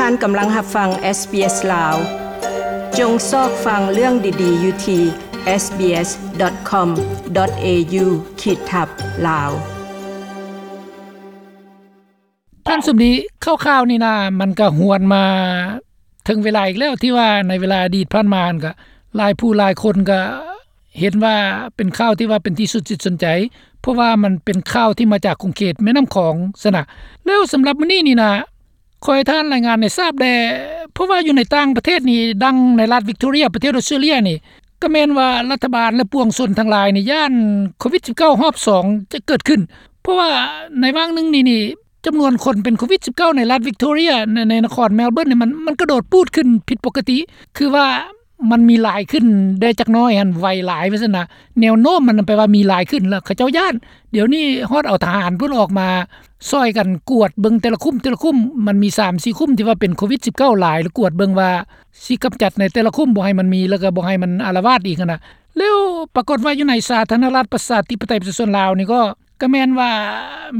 ທ່ານກຳລັງຮັບຟັງ ເອສບີເອສ ລາວ. ຈົ່ງຊອກຟັງເລື່ອງດີໆຢູ່ທີ່ sbs.com.au/lawes. ທ່ານສົມດີ, ຂ່າວໆນີ້ນະ ມັນກະຫວນມາເຖິງເວລາອີກແລ້ວ ທີ່ວ່າໃນເວລາອະດີດຜ່ານມາຫັ້ນກະ ຫຼາຍຜູ້ຫຼາຍຄົນກະເຫັນວ່າເປັນຂ່າວທີ່ວ່າເປັນທີ່ສົນຈິດສົນໃຈ ເພາະວ່າມັນເປັນຂ່າວທີ່ມາຈາກຂົງເຂດແມ່ນ້ຳຂອງຊັ້ນນະ. ແລ້ວສຳລັບມື້ນີ້ນີ້ນະ ຂໍໃຫ້ທ່ານລາຍງານໃຫ້ຊາບແດ່ ເພາະວ່າຢູ່ໃນຕ່າງປະເທດນີ້ ດັ່ງໃນລັດວິກໂທເຣຍ ປະເທດອອສເຕຣເລຍນີ້ ກະແມ່ນວ່າລັດຖະບານ ແລະ ປວງຊົນທັງຫຼາຍນີ້ ຢ້ານໂຄວິດສິບເກົ້າຮອບສອງຈະເກີດຂຶ້ນ ເພາະວ່າໃນຫວ່າງໜຶ່ງນີ້ນີ້ ຈຳນວນຄົນເປັນໂຄວິດສິບເກົ້າໃນລັດວິກໂທເຣຍ ໃນ ໃນນະຄອນແມລເບີນນີ້ ມັນ ມັນກະໂດດປູດຂຶ້ນຜິດປົກກະຕິ ຄືວ່າມັນມີຫຼາຍຂຶ້ນແດ່ຈັກໜ້ອຍຫັ້ນ ໄວຫຼາຍວ່າຊັ້ນນະ. ແນວໂນ້ມມັນແປວ່າມີຫຼາຍຂຶ້ນ ແລ້ວເຂົາເຈົ້າຢ້ານ. ດຽວນີ້ຮອດເອົາທະຫານເພິ່ນອອກມາຊ່ອຍກັນກວດເບິ່ງແຕ່ລະຄຸ້ມ ແຕ່ລະຄຸ້ມ ມັນມີສາມສີ່ຄຸ້ມທີ່ວ່າເປັນໂຄວິດສິບເກົ້າຫຼາຍ ແລ້ວກວດເບິ່ງວ່າຊິກຳຈັດໃນແຕ່ລະຄຸ້ມ ບໍ່ໃຫ້ມັນມີ ແລ້ວກະບໍ່ໃຫ້ມັນອາລະວາດອີກຫັ້ນນະ. ແລ້ວປາກົດວ່າຢູ່ໃນສາທາລະນະລັດປະຊາທິປະໄຕປະຊາຊົນລາວນີ້ກໍ ກະແມ່ນວ່າ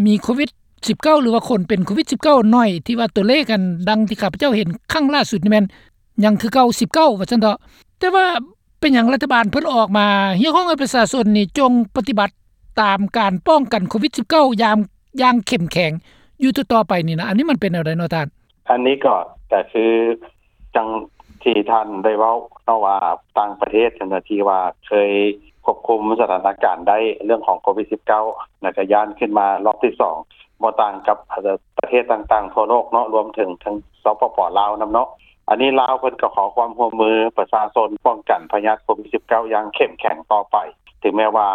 ມີໂຄວິດສິບເກົ້າ ຫຼືວ່າຄົນເປັນໂຄວິດສິບເກົ້າໜ້ອຍ ທີ່ວ່າຕົວເລກອັນ ດັ່ງທີ່ຂ້າພະເຈົ້າເຫັນຄັ້ງລ່າສຸດນີ້ແມ່ນຍັງຄືເກົ່າ ສິບເກົ້າ ວ່າຊັ້ນເຖາະ. ແຕ່ວ່າເປັນຫຍັງລັດຖະບານເພິ່ນອອກມາຮຽກຮ້ອງໃຫ້ປະຊາຊົນນີ້ຈົ່ງປະຕິບັດຕາມການປ້ອງກັນໂຄວິດສິບເກົ້າຢ່າງ ຢ່າງເຂັ້ມແຂງຢູ່ຕໍ່ໆໄປນີ້ນະ? ອັນນີ້ມັນເປັນແນວໃດເນາະທ່ານ? ອັນນີ້ກໍ ກໍຄື ຈັ່ງທີ່ທ່ານໄດ້ເວົ້າເນາະວ່າ ຕ່າງປະເທດເຈົ້າໜ້າທີ່ວ່າເຄີຍຄວບຄຸມສະຖານະການໄດ້ເລື່ອງຂອງໂຄວິດສິບເກົ້າ ແລ້ວກະຢ້ານຂຶ້ນມາລອບທີສອງ ບໍ່ຕ່າງກັບ ເອີ ປະເທດຕ່າງໆທົ່ວໂລກເນາະ ລວມເຖິງທັງ ສປປ ລາວ ນຳເນາະ. ອັນນີ້ລາວເພິ່ນກໍຂໍຄວາມຮ່ວມມືປະຊາຊົນປ້ອງກັນພະຍາດໂຄວິດສິບເກົ້າຢ່າງເຂັ້ມແຂງຕໍ່ໄປ ເຖິງແມ້ວ່າ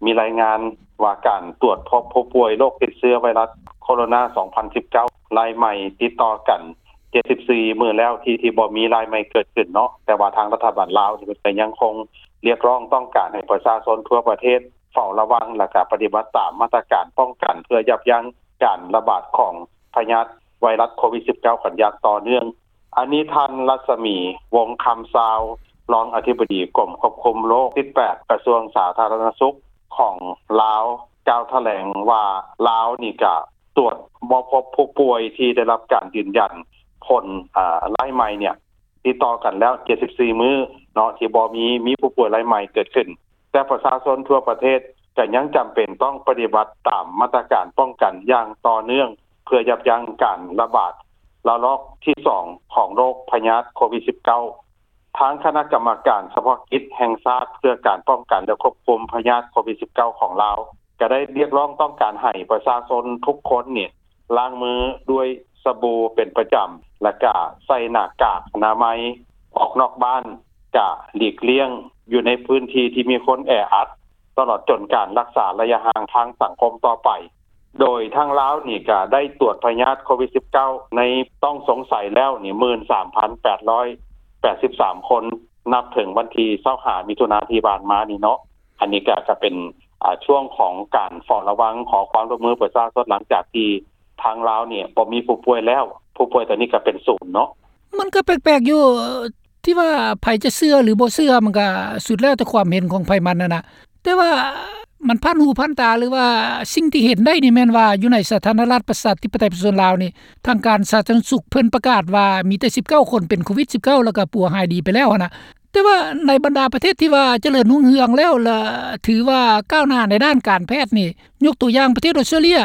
ມີລາຍງານວ່າການຕວດພົບຜູ້ປ່ວຍໂລກຕິດເຊື້ອໄວຣັສໂຄໂຣນາສອງພັນສິບເກົ້າລາຍໃໝ່ຕິດຕໍ່ກັນ ເຈັດສິບສີ່ມື້ແລ້ວທີ່ ທີ່ບໍ່ມີລາຍໃໝ່ເກີດຂຶ້ນເນາະ ແຕ່ວ່າທາງລັດຖະບານລາວນີ້ເພິ່ນກໍຍັງຄົງຮຽກຮ້ອງຕ້ອງການໃຫ້ປະຊາຊົນທົ່ວປະເທດເຝົ້າລະວັງ ແລ້ວກະປະຕິບັດຕາມມາດຕະການປ້ອງກັນ ເພື່ອຢັບຢັ້ງການລະບາດຂອງພະຍາດໄວຣັສໂຄວິດສິບເກົ້າກັນຢ່າງຕໍ່ເນື່ອງ. ອັນນີ້ທ່ານ ລັດສະໝີ ວົງຄຳຊາວ ຮອງອະທິບໍດີກົມຄວບຄຸມໂລກທີແປດ ກະຊວງສາທາລະນະສຸກຂອງລາວ ກ່າວຖະແຫຼງວ່າ ລາວນີ້ກະ ຕວດບໍ່ພົບຜູ້ປ່ວຍທີ່ໄດ້ຮັບການຢືນຢັນຜົນ ອາ ລາຍໃໝ່ເນ່ຍ ຕິດຕໍ່ກັນແລ້ວເຈັດສິບສີ່ມື້ເນາະ ທີ່ບໍ່ມີ ມີຜູ້ປ່ວຍລາຍໃໝ່ເກີດຂຶ້ນ ແຕ່ປະຊາຊົນທົ່ວປະເທດກໍຍັງຈຳເປັນຕ້ອງປະຕິບັດຕາມມາດຕະການປ້ອງກັນຢ່າງຕໍ່ເນື່ອງ ເພື່ອຢັບຢັ້ງການລະບາດລະລອກທີສອງຂອງໂລກພະຍາດໂຄວິດສິບເກົ້າ. ທາງຄະນະກຳມະການສະເພາະກິດແຫ່ງຊາດເພື່ອການປ້ອງກັນ ແລະ ຄວບຄຸມພະຍາດໂຄວິດສິບເກົ້າຂອງລາວ ກໍໄດ້ຮຽກຮ້ອງຕ້ອງການໃຫ້ປະຊາຊົນທຸກຄົນນີ້ລ້າງມືດ້ວຍສະບູເປັນປະຈຳ ແລະ ກະໃສ່ໜ້າກາກອະນາໄມ, ອອກນອກບ້ານກະຫຼີກລ່ຽງຢູ່ໃນພື້ນທີ່ທີ່ມີຄົນແອອັດ ຕະຫຼອດຈົນການຮັກສາໄລຍະຫ່າງທາງສັງຄົມຕໍ່ໄປ. ໂດຍທາງລາວນີ້ກະໄດ້ຕວດພະຍາດໂຄວິດສິບເກົ້າໃນຕ້ອງສົງໄສແລ້ວນີ້ ໝື່ນສາມພັນແປດຮ້ອຍແປດສິບສາມຄົນ ນັບເຖິງວັນທີຊາວຫ້າມິຖຸນາທີ່ຜ່ານມານີ້ເນາະ. ອັນນີ້ກະ ກະເປັນ ອາ ຊ່ວງຂອງການເຝົ້າລະວັງ ຂໍຄວາມຮ່ວມມືປະຊາຊົນ ຫຼັງຈາກທີ່ທາງລາວນີ້ບໍ່ມີຜູ້ປ່ວຍແລ້ວ ຜູ້ປ່ວຍຕອນນີ້ກະເປັນສູນເນາະ. ມັນກະແປກໆຢູ່ ທີ່ວ່າໃຜຈະເຊື່ອຫຼືບໍ່ເຊື່ອ ມັນກະສຸດແລ້ວແຕ່ຄວາມເຫັນຂອງໃຜມັນຫັ້ນນະ ແຕ່ວ່າມັນຜ່ານຫູຜ່ານຕາ ຫຼືວ່າສິ່ງທີ່ເຫັນໄດ້ນີ້ແມ່ນວ່າ ຢູ່ໃນສາທາລະນະລັດປະຊາທິປະໄຕປະຊາຊົນລາວນີ້ ທາງການສາທາລະນະສຸກເພິ່ນປະກາດວ່າມີແຕ່ສິບເກົ້າຄົນເປັນໂຄວິດສິບເກົ້າ ແລ້ວກະປົວຫາຍດີໄປແລ້ວຫັ້ນນະ. ແຕ່ວ່າໃນບັນດາປະເທດທີ່ວ່າຈະເລີນຮຸ່ງເຮືອງແລ້ວ ແລະ ຖືວ່າກ້າວໜ້າໃນດ້ານການແພດນີ້ ຍົກຕົວຢ່າງປະເທດອອສເຕຣເລຍ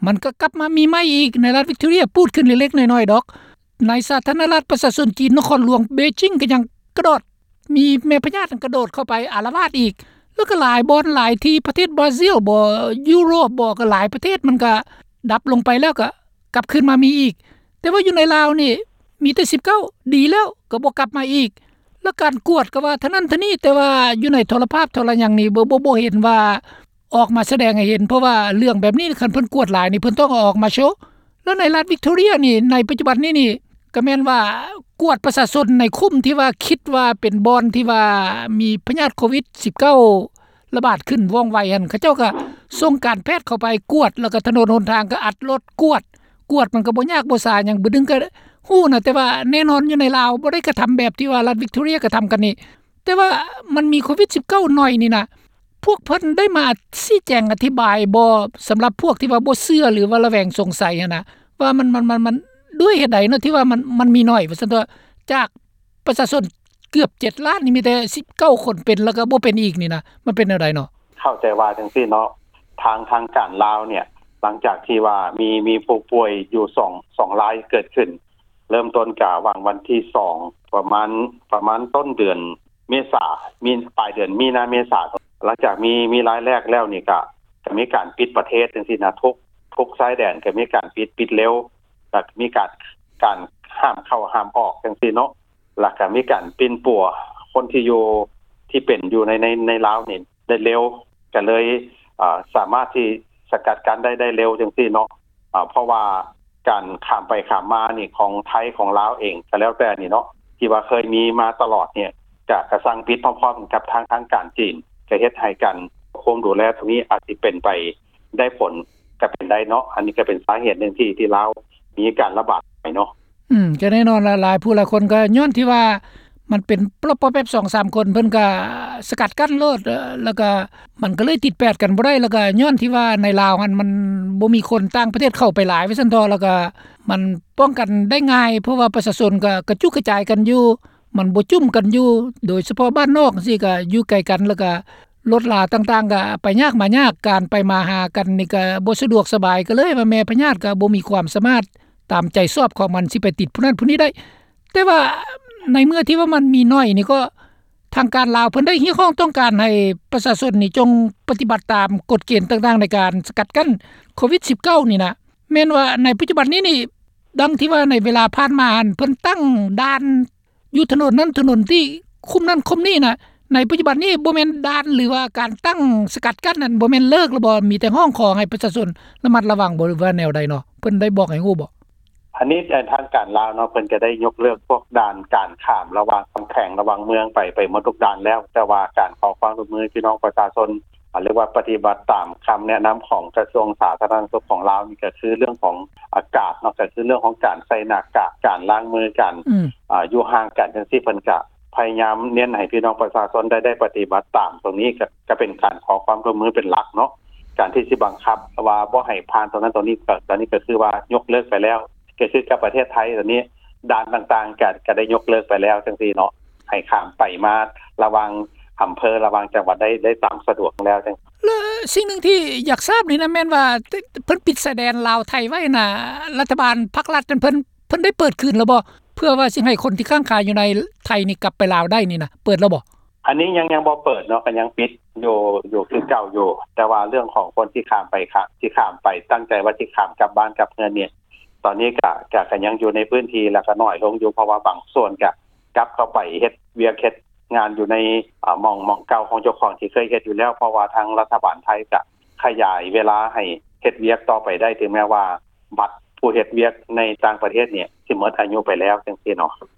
ມັນກະກັບມາມີໃໝ່ອີກ ໃນລັດວິກໂທເຣຍ ປູດຂຶ້ນເລັກໆນ້ອຍໆດອກ. ໃນສາທາລະນະລັດປະຊາຊົນຈີນ ນະຄອນຫຼວງເບຈິງກະຍັງກະໂດດ ມີແມ່ພະຍາດກະໂດດເຂົ້າໄປອາລະວາດອີກ ແລ້ວກະຫຼາຍບ່ອນຫຼາຍທີ່ ປະເທດບຣາຊິລບໍ ຢູໂຣບບໍ ກະຫຼາຍປະເທດ ມັນກະດັບລົງໄປແລ້ວກະກັບຄືນມາມີອີກ. ແຕ່ວ່າຢູ່ໃນລາວນີ້ມີແຕ່ສິບເກົ້າ ດີແລ້ວກະບໍ່ກັບມາອີກ ແລ້ວການກວດກະວ່າເທົ່ານັ້ນເທົ່ານີ້ ແຕ່ວ່າຢູ່ໃນໂທລະພາບໂທລະຫຍັງນີ້ ບໍ່ ບໍ່ ບໍ່ເຫັນວ່າ ອອກມາສະແດງໃຫ້ເຫັນ ເພາະວ່າເລື່ອງແບບນີ້ ຄັນເພິ່ນກວດຫຼາຍນີ້ ເພິ່ນຕ້ອງເອົາອອກມາໂຊ. ແລ້ວໃນລັດວິກໂທເຣຍນີ້ ໃນປັດຈຸບັນນີ້ນີ້ ກະແມ່ນວ່າກວດປະຊາຊົນໃນຄຸ້ມທີ່ວ່າຄິດວ່າເປັນບ່ອນທີ່ວ່າມີພະຍາດໂຄວິດສິບເກົ້າລະບາດຂຶ້ນວ່ອງໄວຫັ້ນ ເຂົາເຈົ້າກະສົ່ງການແພດເຂົ້າໄປກວດ ແລ້ວກະຖະໜົນຫົນທາງກະອັດລົດກວດ ກວດມັນກະບໍ່ຍາກບໍ່ສາຫຍັງ ບຶດໜຶ່ງກະຮູ້ນະ. ແຕ່ວ່າແນ່ນອນຢູ່ໃນລາວບໍ່ໄດ້ກະທຳແບບທີ່ວ່າລັດວິກໂທເຣຍກະທຳກັນນີ້ ແຕ່ວ່າມັນມີໂຄວິດສິບເກົ້າໜ້ອຍນີ້ນະ ພວກເພິ່ນໄດ້ມາຊີ້ແຈງອະທິບາຍບໍ່ ສຳລັບພວກທີ່ວ່າບໍ່ເຊື່ອ ຫຼືວ່າລະແວງສົງໄສຫັ້ນນະ ວ່າມັນ ມັນ ມັນ ມັນ ດ້ວຍເຫດໃດເນາະ ທີ່ວ່າມັນ ມັນມີໜ້ອຍວ່າຊັ້ນເຖາະ ຈາກປະຊາຊົນເກືອບເຈັດລ້ານນີ້ ມີແຕ່ສິບເກົ້າຄົນເປັນ ແລ້ວກໍບໍ່ເປັນອີກນີ້ນະ ມັນເປັນແນວໃດເນາະ? ເຂົ້າໃຈວ່າຈັ່ງຊີ້ເນາະ ທາງ ທາງການລາວເນ່ຍ ຫຼັງຈາກທີ່ວ່າມີ ມີຜູ້ປ່ວຍຢູ່ສອງ ສອງລາຍເກີດຂຶ້ນ ເລີ່ມຕົ້ນກະຫວ່າງວັນທີສອງ ປະມານ ປະມານຕົ້ນເດືອນເມສາ ມີ ປາຍເດືອນມີນາ ເມສາ ຫຼັງຈາກມີ ມີລາຍແລກແລ້ວນີ້ກະ ກະມີການປິດປະເທດຈັ່ງຊີ້ນະ ທຸກ ທຸກຊາຍແດນກະມີການປິດ ປິດເລວ ລະກະມີການ ການຫ້າມເຂົ້າຫ້າມອອກຈັ່ງຊີ້ເນາະ ລະກະມີການປິ່ນປົວຄົນທີ່ຢູ່ ທີ່ເປັນຢູ່ໃນ ໃນ ໃນລາວນີ້ໄດ້ເລັວ ກະເລີຍ ເອີ ສາມາດທີ່ສະກັດກັ້ນໄດ້ ໄດ້ເລັວຈັ່ງຊີ້ເນາະ ເພາະວ່າການຂ້າມໄປຂ້າມມານີ້ ຂອງໄທ ຂອງລາວເອງກະແລ້ວແຕ່ນີ້ເນາະ ທີ່ວ່າເຄີຍມີມາຕະຫຼອດເນ່ຍ ກະ ກະສັ່ງປິດພ້ອມໆກັນກັບທາງ ທາງການຈີນ ກະເຮັດໃຫ້ການຄວບຄຸມດູແລຕົງນີ້ອາດຊິເປັນໄປໄດ້ຜົນ ກະເປັນໄດ້ເນາະ ອັນນີ້ກະເປັນສາເຫດໜຶ່ງທີ່ ທີ່ລາວມີການລະບາດໄປເນາະ. ອືມ ກະແນ່ນອນລະ ຫຼາຍຜູ້ຫຼາຍຄົນກະຍ້ອນທີ່ວ່າມັນເປັນປອບໆແປັບ ສອງສາມຄົນ ເພິ່ນກະສະກັດກັ້ນໂລດ ເອີ ແລ້ວກະມັນກະເລີຍຕິດແປດກັນບໍ່ໄດ້ ແລ້ວກະຍ້ອນທີ່ວ່າໃນລາວຫັ້ນມັນບໍ່ມີຄົນຕ່າງປະເທດເຂົ້າໄປຫຼາຍວ່າຊັ້ນເຖາະ ແລ້ວກະມັນປ້ອງກັນໄດ້ງ່າຍ ເພາະວ່າປະຊາຊົນກະກະຈຸກກະຈາຍກັນຢູ່ ມັນບໍ່ຈຸ້ມກັນຢູ່ ໂດຍສະເພາະບ້ານນອກຈັ່ງຊີ້ກະຢູ່ໄກກັນ ແລ້ວກະລົດລາຕ່າງໆກະໄປຍາກມາຍາກ ການໄປມາຫາກັນນີ້ກະບໍ່ສະດວກສະບາຍ ກະເລີຍວ່າແມ່ພະຍາດກະບໍ່ມີຄວາມສາມາດຕາມໃຈຊອບຂອງມັນ ຊິໄປຕິດຜູ້ນັ້ນຜູ້ນີ້ໄດ້. ແຕ່ວ່າໃນເມື່ອທີ່ວ່າມັນມີໜ້ອຍນີ້ ກໍທາງການລາວເພິ່ນໄດ້ຮຽກຮ້ອງຕ້ອງການໃຫ້ປະຊາຊົນນີ້ຈົ່ງປະຕິບັດຕາມກົດເກນຕ່າງໆໃນການສະກັດກັ້ນໂຄວິດສິບເກົ້ານີ້ນະ ແມ່ນວ່າໃນປັດຈຸບັນນີ້ນີ້ ດັ່ງທີ່ວ່າໃນເວລາຜ່ານມາຫັ້ນ ເພິ່ນຕັ້ງດ່ານຢູ່ຖະໜົນນັ້ນຖະໜົນນີ້ ຄຸ້ມນັ້ນຄຸ້ມນີ້ນະ ໃນປັດຈຸບັນນີ້ບໍ່ແມ່ນດ່ານ ຫຼືວ່າການຕັ້ງສະກັດກັ້ນນັ້ນ ບໍ່ແມ່ນເລີກແລ້ວບໍ່? ມີແຕ່ຮ້ອງຂໍໃຫ້ປະຊາຊົນລະມັດລະວັງບໍ່ ຫຼືວ່າແນວໃດເນາະ? ເພິ່ນໄດ້ບອກໃຫ້ຮູ້ບໍ່? ອັນນີ້ ເອີ ທາງການລາວເນາະ ເພິ່ນກະໄດ້ຍົກເລີກພວກດ່ານການຂ້າມລະຫວ່າງແຂວງ ລະຫວ່າງເມືອງໄປ ໄປໝົດທຸກດ່ານແລ້ວ ແຕ່ວ່າການຂໍຄວາມຮ່ວມມືພີ່ນ້ອງປະຊາຊົນ ຫຼືວ່າປະຕິບັດຕາມຄຳແນະນຳຂອງກະຊວງສາທາລະນະສຸກຂອງລາວນີ້ ກະຄືເລື່ອງຂອງອາກາດເນາະ ກະຄືເລື່ອງຂອງການໃສ່ໜ້າກາກ ການລ້າງມື ການ ອືມ ອາ ຢູ່ຫ່າງກັນຈັ່ງຊີ້ ເພິ່ນກະພະຍາຍາມເນັ້ນໃຫ້ພີ່ນ້ອງປະຊາຊົນໄດ້ ໄດ້ປະຕິບັດຕາມຕົງນີ້ ກະ ກະເປັນການຂໍຄວາມຮ່ວມມືເປັນຫຼັກເນາະ ການທີ່ຊິບັງຄັບວ່າບໍ່ໃຫ້ຜ່ານຕົງນັ້ນຕົງນີ້ ກະ ຕອນນີ້ກະຄືວ່າຍົກເລີກໄປແລ້ວ ກະຄືກັບປະເທດໄທຕອນນີ້ ດ່ານຕ່າງໆກະ ກະໄດ້ຍົກເລີກໄປແລ້ວຈັ່ງຊີ້ເນາະ ໃຫ້ຂ້າມໄປມາລະຫວ່າງອຳເພີ ລະຫວ່າງຈັງຫວັດໄດ້ ໄດ້ຕາມສະດວກແລ້ວຈັ່ງ. ແລະ ສິ່ງໜຶ່ງທີ່ຢາກຊາບນີ້ນະ ແມ່ນວ່າເພິ່ນປິດຊາຍແດນລາວໄທໄວ້ນະ ລັດຖະບານພັກລັດນັ້ນ ເພິ່ນ ເພິ່ນໄດ້ເປີດຄືນແລ້ວບໍ່? ເພື່ອວ່າຊິໃຫ້ຄົນທີ່ຄ້າງຄາຢູ່ໃນໄທນີ້ກັບໄປລາວໄດ້ນີ້ນະ ເປີດແລ້ວບໍ່? ອັນນີ້ຍັງ ຍັງບໍ່ເປີດເນາະ ກະຍັງປິດຢູ່ ຢູ່ຄືເກົ່າຢູ່ ແຕ່ວ່າເລື່ອງຂອງຄົນທີ່ຂ້າມໄປ ທີ່ຂ້າມໄປ ຕັ້ງໃຈວ່າຊິຂ້າມກັບບ້ານກັບເຮືອນນີ້ ຕອນນີ້ກະ ກະ ກະຍັງຢູ່ໃນພື້ນທີ່ ແລ້ວກະໜ້ອຍລົງຢູ່ ເພາະວ່າບາງສ່ວນກະກັບເຂົ້າໄປເຮັດວຽກເຮັດງານຢູ່ໃນ ອາ ໝ່ອງ ໝ່ອງເກົ່າຂອງເຈົ້າຂອງທີ່ເຄີຍເຮັດຢູ່ແລ້ວ ເພາະວ່າທາງລັດຖະບານໄທກະຂະຫຍາຍເວລາໃຫ້ເຮັດວຽກຕໍ່ໄປໄດ້ ເຖິງແມ່ວ່າບັດຜູ້ເຮັດວຽກໃນຕ່າງປະເທດນີ້ຊິໝົດອາຍຸໄປແລ້ວຈັ່ງຊີ້ເນາະ.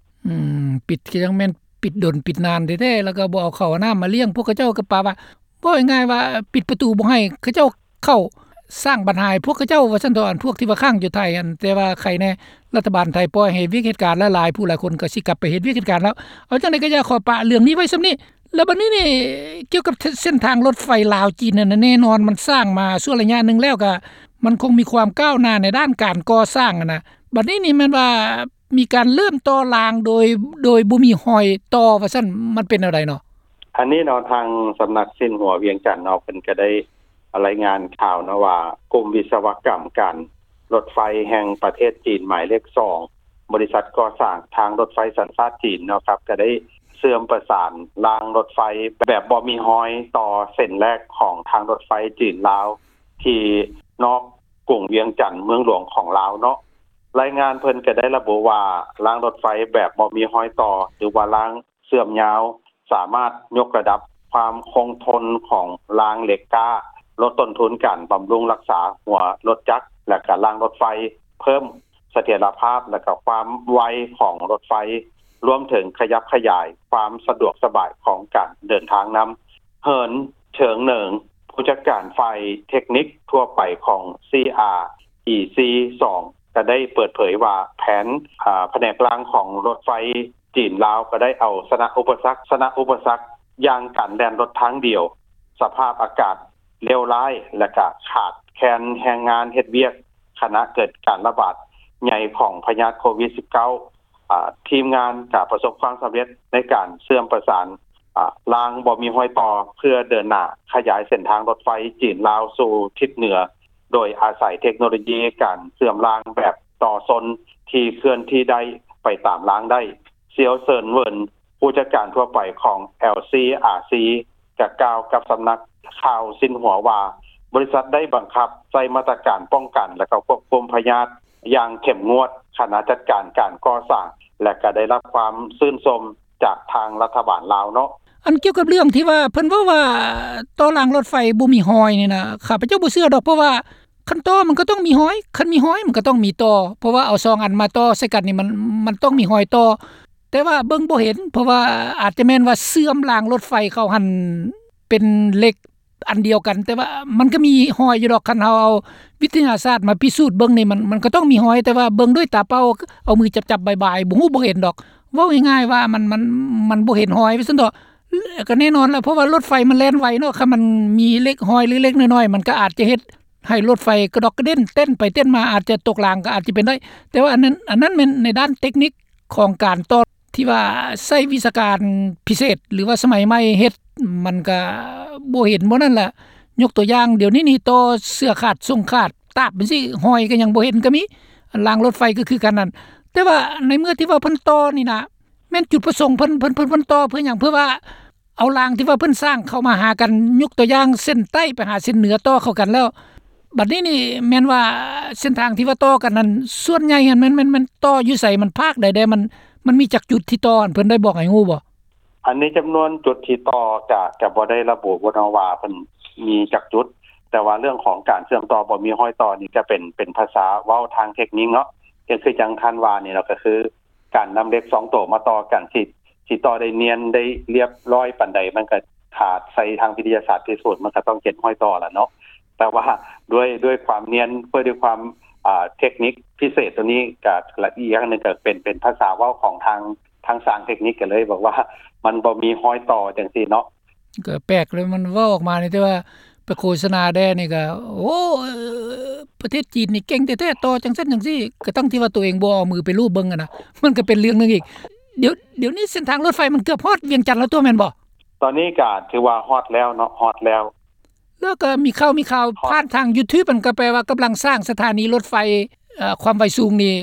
ອືມ ປິດກະຍັງແມ່ນປິດດົນປິດນານແທ້ໆ ແລ້ວກະບໍ່ເອົາເຂົ້າເອົານ້ຳມາລ້ຽງພວກເຂົາເຈົ້າ ກະປະວ່າ ເວົ້າງ່າຍໆວ່າປິດປະຕູບໍ່ໃຫ້ເຂົາເຈົ້າເຂົ້າ ສ້າງບັນຫາໃຫ້ພວກເຂົາເຈົ້າວ່າຊັ້ນເຖາະ ອັນພວກທີ່ວ່າຄ້າງຢູ່ໄທຫັ້ນ ແຕ່ວ່າໄຄແນ່ ລັດຖະບານໄທປ່ອຍໃຫ້ເຮັດວຽກເຮັດການ ແລະ ຫຼາຍຜູ້ຫຼາຍຄົນກະຊິກັບໄປເຮັດວຽກເຮັດການແລ້ວ. ເອົາຈັ່ງໃດກະຢາກຂໍປະເລື່ອງນີ້ໄວ້ສ່ຳນີ້ ແລ້ວບັດນີ້ນີ້ ກ່ຽວກັບເສັ້ນທາງລົດໄຟລາວຈີນນັ້ນ ແນ່ນອນມັນສ້າງມາຊົ່ວໄລຍະໜຶ່ງແລ້ວ ກະມັນຄົງມີຄວາມກ້າວໜ້າໃນດ້ານການກໍ່ສ້າງຫັ້ນນະ ບັດນີ້ນີ້ແມ່ນວ່າ ມີການເລີ່ມຕໍ່ລາງໂດຍ ໂດຍບໍ່ມີຮອຍຕໍ່ວ່າຊັ້ນ ມັນເປັນແນວໃດເນາະ? ອັນນີ້ເນາະ ທາງສຳນັກຊິນຫົວວຽງຈັນເນາະ ເພິ່ນກະໄດ້ລາຍງານຂ່າວເນາະວ່າ ກຸ່ມວິສະວະກຳການລົດໄຟແຫ່ງປະເທດຈີນໝາຍເລກສອງ ບໍລິສັດກໍ່ສ້າງທາງລົດໄຟສັນຊາດຈີນເນາະ ກະໄດ້ເຊື່ອມປະສານລາງລົດໄຟແບບບໍ່ມີຮອຍຕໍ່ເສັ້ນແລກຂອງທາງລົດໄຟຈີນລາວ ທີ່ນອກກຸງວຽງຈັນ ເມືອງຫຼວງຂອງລາວເນາະ. ລາຍງານເພິ່ນກະໄດ້ລະບຸວ່າ ລາງລົດໄຟແບບບໍ່ມີຮອຍຕໍ່ ຫຼືວ່າລາງເຊື່ອມຍາວ ສາມາດຍົກລະດັບຄວາມຄົງທົນຂອງລາງເຫຼັກກ້າ, ລົດຕົ້ນທຶນການບຳລຸງຮັກສາຫົວລົດຈັກ ແລະ ກະລາງລົດໄຟ, ເພີ່ມສະຖຽນລະພາບ ແລະ ກະຄວາມໄວຂອງລົດໄຟ, ລວມເຖິງຂະຫຍັບຂະຫຍາຍຄວາມສະດວກສະບາຍຂອງການເດີນທາງນຳ. ເຫີນ ເທີງເໜີງ ຜູ້ຈັດການຝ່າຍເທັກນິກທົ່ວໄປຂອງ ຊີອາອີຊີສອງ ກະໄດ້ເປີດເຜີຍວ່າ ແຜນ ອາ ພະແນກລາງຂອງລົດໄຟຈີນລາວ ກະໄດ້ເອົາຊະນະອຸປະສັກ, ຊະນະອຸປະສັກຢ່າງການແລ່ນລົດທາງດຽວ, ສະພາບອາກາດເລວຮ້າຍ ແລະ ກະຂາດແຄນແຮງງານເຮັດວຽກ ຂະນະເກີດການລະບາດ ໃຫຍ່ຂອງພະຍາດໂຄວິດ-19 ອາ ທີມງານກໍປະສົບຄວາມສຳເລັດໃນການເຊື່ອມປະສານ ອາ ລາງບໍ່ມີຮອຍຕໍ່ ເພື່ອເດີນໜ້າຂະຫຍາຍເສັ້ນທາງລົດໄຟຈີນ-ລາວສູ່ທິດເໜືອ ໂດຍອາໄສເທັກໂນໂລຢີການເຊື່ອມລາງແບບຕໍ່ຊົນທີ່ເຄື່ອນທີ່ໄດ້ໄປຕາມລາງໄດ້. ຊຽວເຊີນເຫວິນ ຜູ້ຈັດການທົ່ວໄປຂອງ ແອລຊີອາຊີ ກໍກ່າວກັບສຳນັກຂ່າວຊິນຫົວວ່າ ບໍລິສັດໄດ້ບັງຄັບໃຊ້ມາດຕະການປ້ອງກັນ ແລະ ກໍຄວບຄຸມພະຍາດຢ່າງເຂັ້ມງວດ, ຄະນະຈັດການການກໍ່ສ້າງ ແລະ ກໍໄດ້ຮັບຄວາມຊື່ນຊົມຈາກທາງລັດຖະບານລາວເນາະ. ອັນກ່ຽວກັບເລື່ອງທີ່ວ່າເພິ່ນເວົ້າວ່າ ຕໍ່ລາງລົດໄຟບໍ່ມີຮອຍນີ້ນະ ຂ້າພະເຈົ້າບໍ່ເຊື່ອດອກ ເພາະວ່າຄັນຕໍ່ມັນກໍຕ້ອງມີຮອຍ, ຄັນມີຮອຍມັນກໍຕ້ອງມີຕໍ່ ເພາະວ່າເອົາສອງອັນມາຕໍ່ໃສ່ກັນນີ້ ມັນ ມັນຕ້ອງມີຮອຍຕໍ່ ແຕ່ວ່າເບິ່ງບໍ່ເຫັນ ເພາະວ່າອາດຈະແມ່ນວ່າເຊື່ອມລາງລົດໄຟເຂົາຫັ້ນເປັນເຫຼັກອັນດຽວກັນ ແຕ່ວ່າມັນກໍມີຮອຍຢູ່ດອກ. ຄັນເຮົາເອົາວິທະຍາສາດມາພິສູດເບິ່ງນີ້ ມັນ ມັນກໍຕ້ອງມີຮອຍ ແຕ່ວ່າເບິ່ງດ້ວຍຕາເປົ່າ ເອົາມືຈັບໆບາຍໆ ບໍ່ຮູ້ບໍ່ເຫັນດອກ. ເວົ້າງ່າຍໆວ່າມັນ ມັນ ມັນບໍ່ເຫັນຮອຍວ່າຊັ້ນເຖາະ. ກໍແນ່ນອນແຫຼະ ເພາະວ່າລົດໄຟມັນແລ່ນໄວເນາະ ຄັນມັນມີເຫຼັກຮອຍເລັກໆນ້ອຍໆ ມັນກໍອາດຈະເຮັດໃຫ້ລົດໄຟກະດອກກະເດັນ ເຕັ້ນໄປເຕັ້ນມາ ອາດຈະຕົກລາງກໍອາດຈະເປັນໄດ້. ແຕ່ວ່າອັນນັ້ນ ອັນນັ້ນແມ່ນໃນດ້ານເຕັກນິກຂອງການຕໍ່ ທີ່ວ່າໃຊ້ວິຊາການພິເສດ ຫຼືວ່າສະໄໝໃໝ່ເຮັດ ມັນກະບໍ່ເຫັນບໍ່ນັ້ນລະ. ຍົກຕົວຢ່າງ ດຽວນີ້ນີ້ຕໍ່ເສື້ອຂາດ ສົ້ງຂາດ ຕາບຈັ່ງຊີ້ ຮອຍກໍຍັງບໍ່ເຫັນກໍມີ. ລາງລົດໄຟກໍຄືກັນນັ້ນ. ແຕ່ວ່າໃນເມື່ອທີ່ວ່າເພິ່ນຕໍ່ນີ້ນະ ແມ່ນຈຸດປະສົງເພິ່ນ ເພິ່ນ ເພິ່ນ ເພິ່ນຕໍ່ເພື່ອຫຍັງ? ເພື່ອວ່າ ເອົາລາງທີ່ວ່າເພິ່ນສ້າງເຂົ້າມາຫາກັນ ຍົກຕົວຢ່າງເສັ້ນໃຕ້ໄປຫາເສັ້ນເໜືອຕໍ່ເຂົ້າກັນແລ້ວ ບັດນີ້ນີ້ແມ່ນວ່າເສັ້ນທາງທີ່ວ່າຕໍ່ກັນນັ້ນ ສ່ວນໃຫຍ່ຫັ້ນແມ່ນ ແມ່ນ ແມ່ນຕໍ່ຢູ່ໃສ? ມັນພາກໃດແດ່? ມັນ ມັນມີຈັກຈຸດທີ່ຕໍ່? ອັນເພິ່ນໄດ້ບອກໃຫ້ຮູ້ບໍ່? ອັນນີ້ຈຳນວນຈຸດທີ່ຕໍ່ກະ ກະບໍ່ໄດ້ລະບຸເນາະວ່າເພິ່ນມີຈັກຈຸດ ແຕ່ວ່າເລື່ອງຂອງການເຊື່ອມຕໍ່ບໍ່ມີຮອຍຕໍ່ນີ້ ກະເປັນ ເປັນພາສາເວົ້າທາງເທັກນິກເນາະ ກໍຄືຈັ່ງທ່ານວ່ານີ້ເນາະ ກໍຄື ການນຳເຫຼັກສອງໂຕມາຕໍ່ກັນ ຊິ ຊິຕໍ່ໄດ້ນຽນໄດ້ລຽບຮ້ອຍປານໃດ ມັນກໍຖ້າໃຊ້ທາງວິທະຍາສາດພິສູດ ມັນກໍຕ້ອງເຈັດຮ້ອຍຕໍ່ລະເນາະ. ແຕ່ວ່າດ້ວຍ ດ້ວຍຄວາມນຽນ ດ້ວຍ ດ້ວຍຄວາມ ອ່າ ເທັກນິກພິເສດໂຕນີ້ ກໍລະອຽດໜຶ່ງ ກໍເປັນ ເປັນພາສາເວົ້າຂອງທາງ ທາງຊ່າງເທັກນິກ ກໍເລີຍບອກວ່າມັນບໍ່ມີຮອຍຕໍ່ຈັ່ງຊີ້ເນາະ. ກໍແປກເລີຍ ມັນເວົ້າອອກມານີ້ ແຕ່ວ່າ ໄປໂຄສະນາແດ່ນີ້ກໍ ໂອ້ ປະເທດຈີນນີ້ເກັ່ງແທ້ໆ ຕໍ່ຈັ່ງຊັ້ນຈັ່ງຊີ້ ກະທັ່ງທີ່ວ່າໂຕເອງບໍ່ເອົາມືໄປລູບເບິ່ງຫັ້ນນະ ມັນກໍເປັນເລື່ອງໜຶ່ງອີກ. ດຽວ ດຽວນີ້ເສັ້ນທາງລົດໄຟມັນເກືອບຮອດວຽງຈັນແລ້ວຕົວະ ແມ່ນບໍ່? ຕອນນີ້ກໍຖືວ່າຮອດແລ້ວເນາະ ຮອດແລ້ວ. ແລ້ວກໍມີຂ່າວ ມີຂ່າວຜ່ານທາງຢູທູບ ມັນກໍແປວ່າກຳລັງສ້າງສະຖານີລົດໄຟ ເອີ ຄວາມໄວສູງນີ້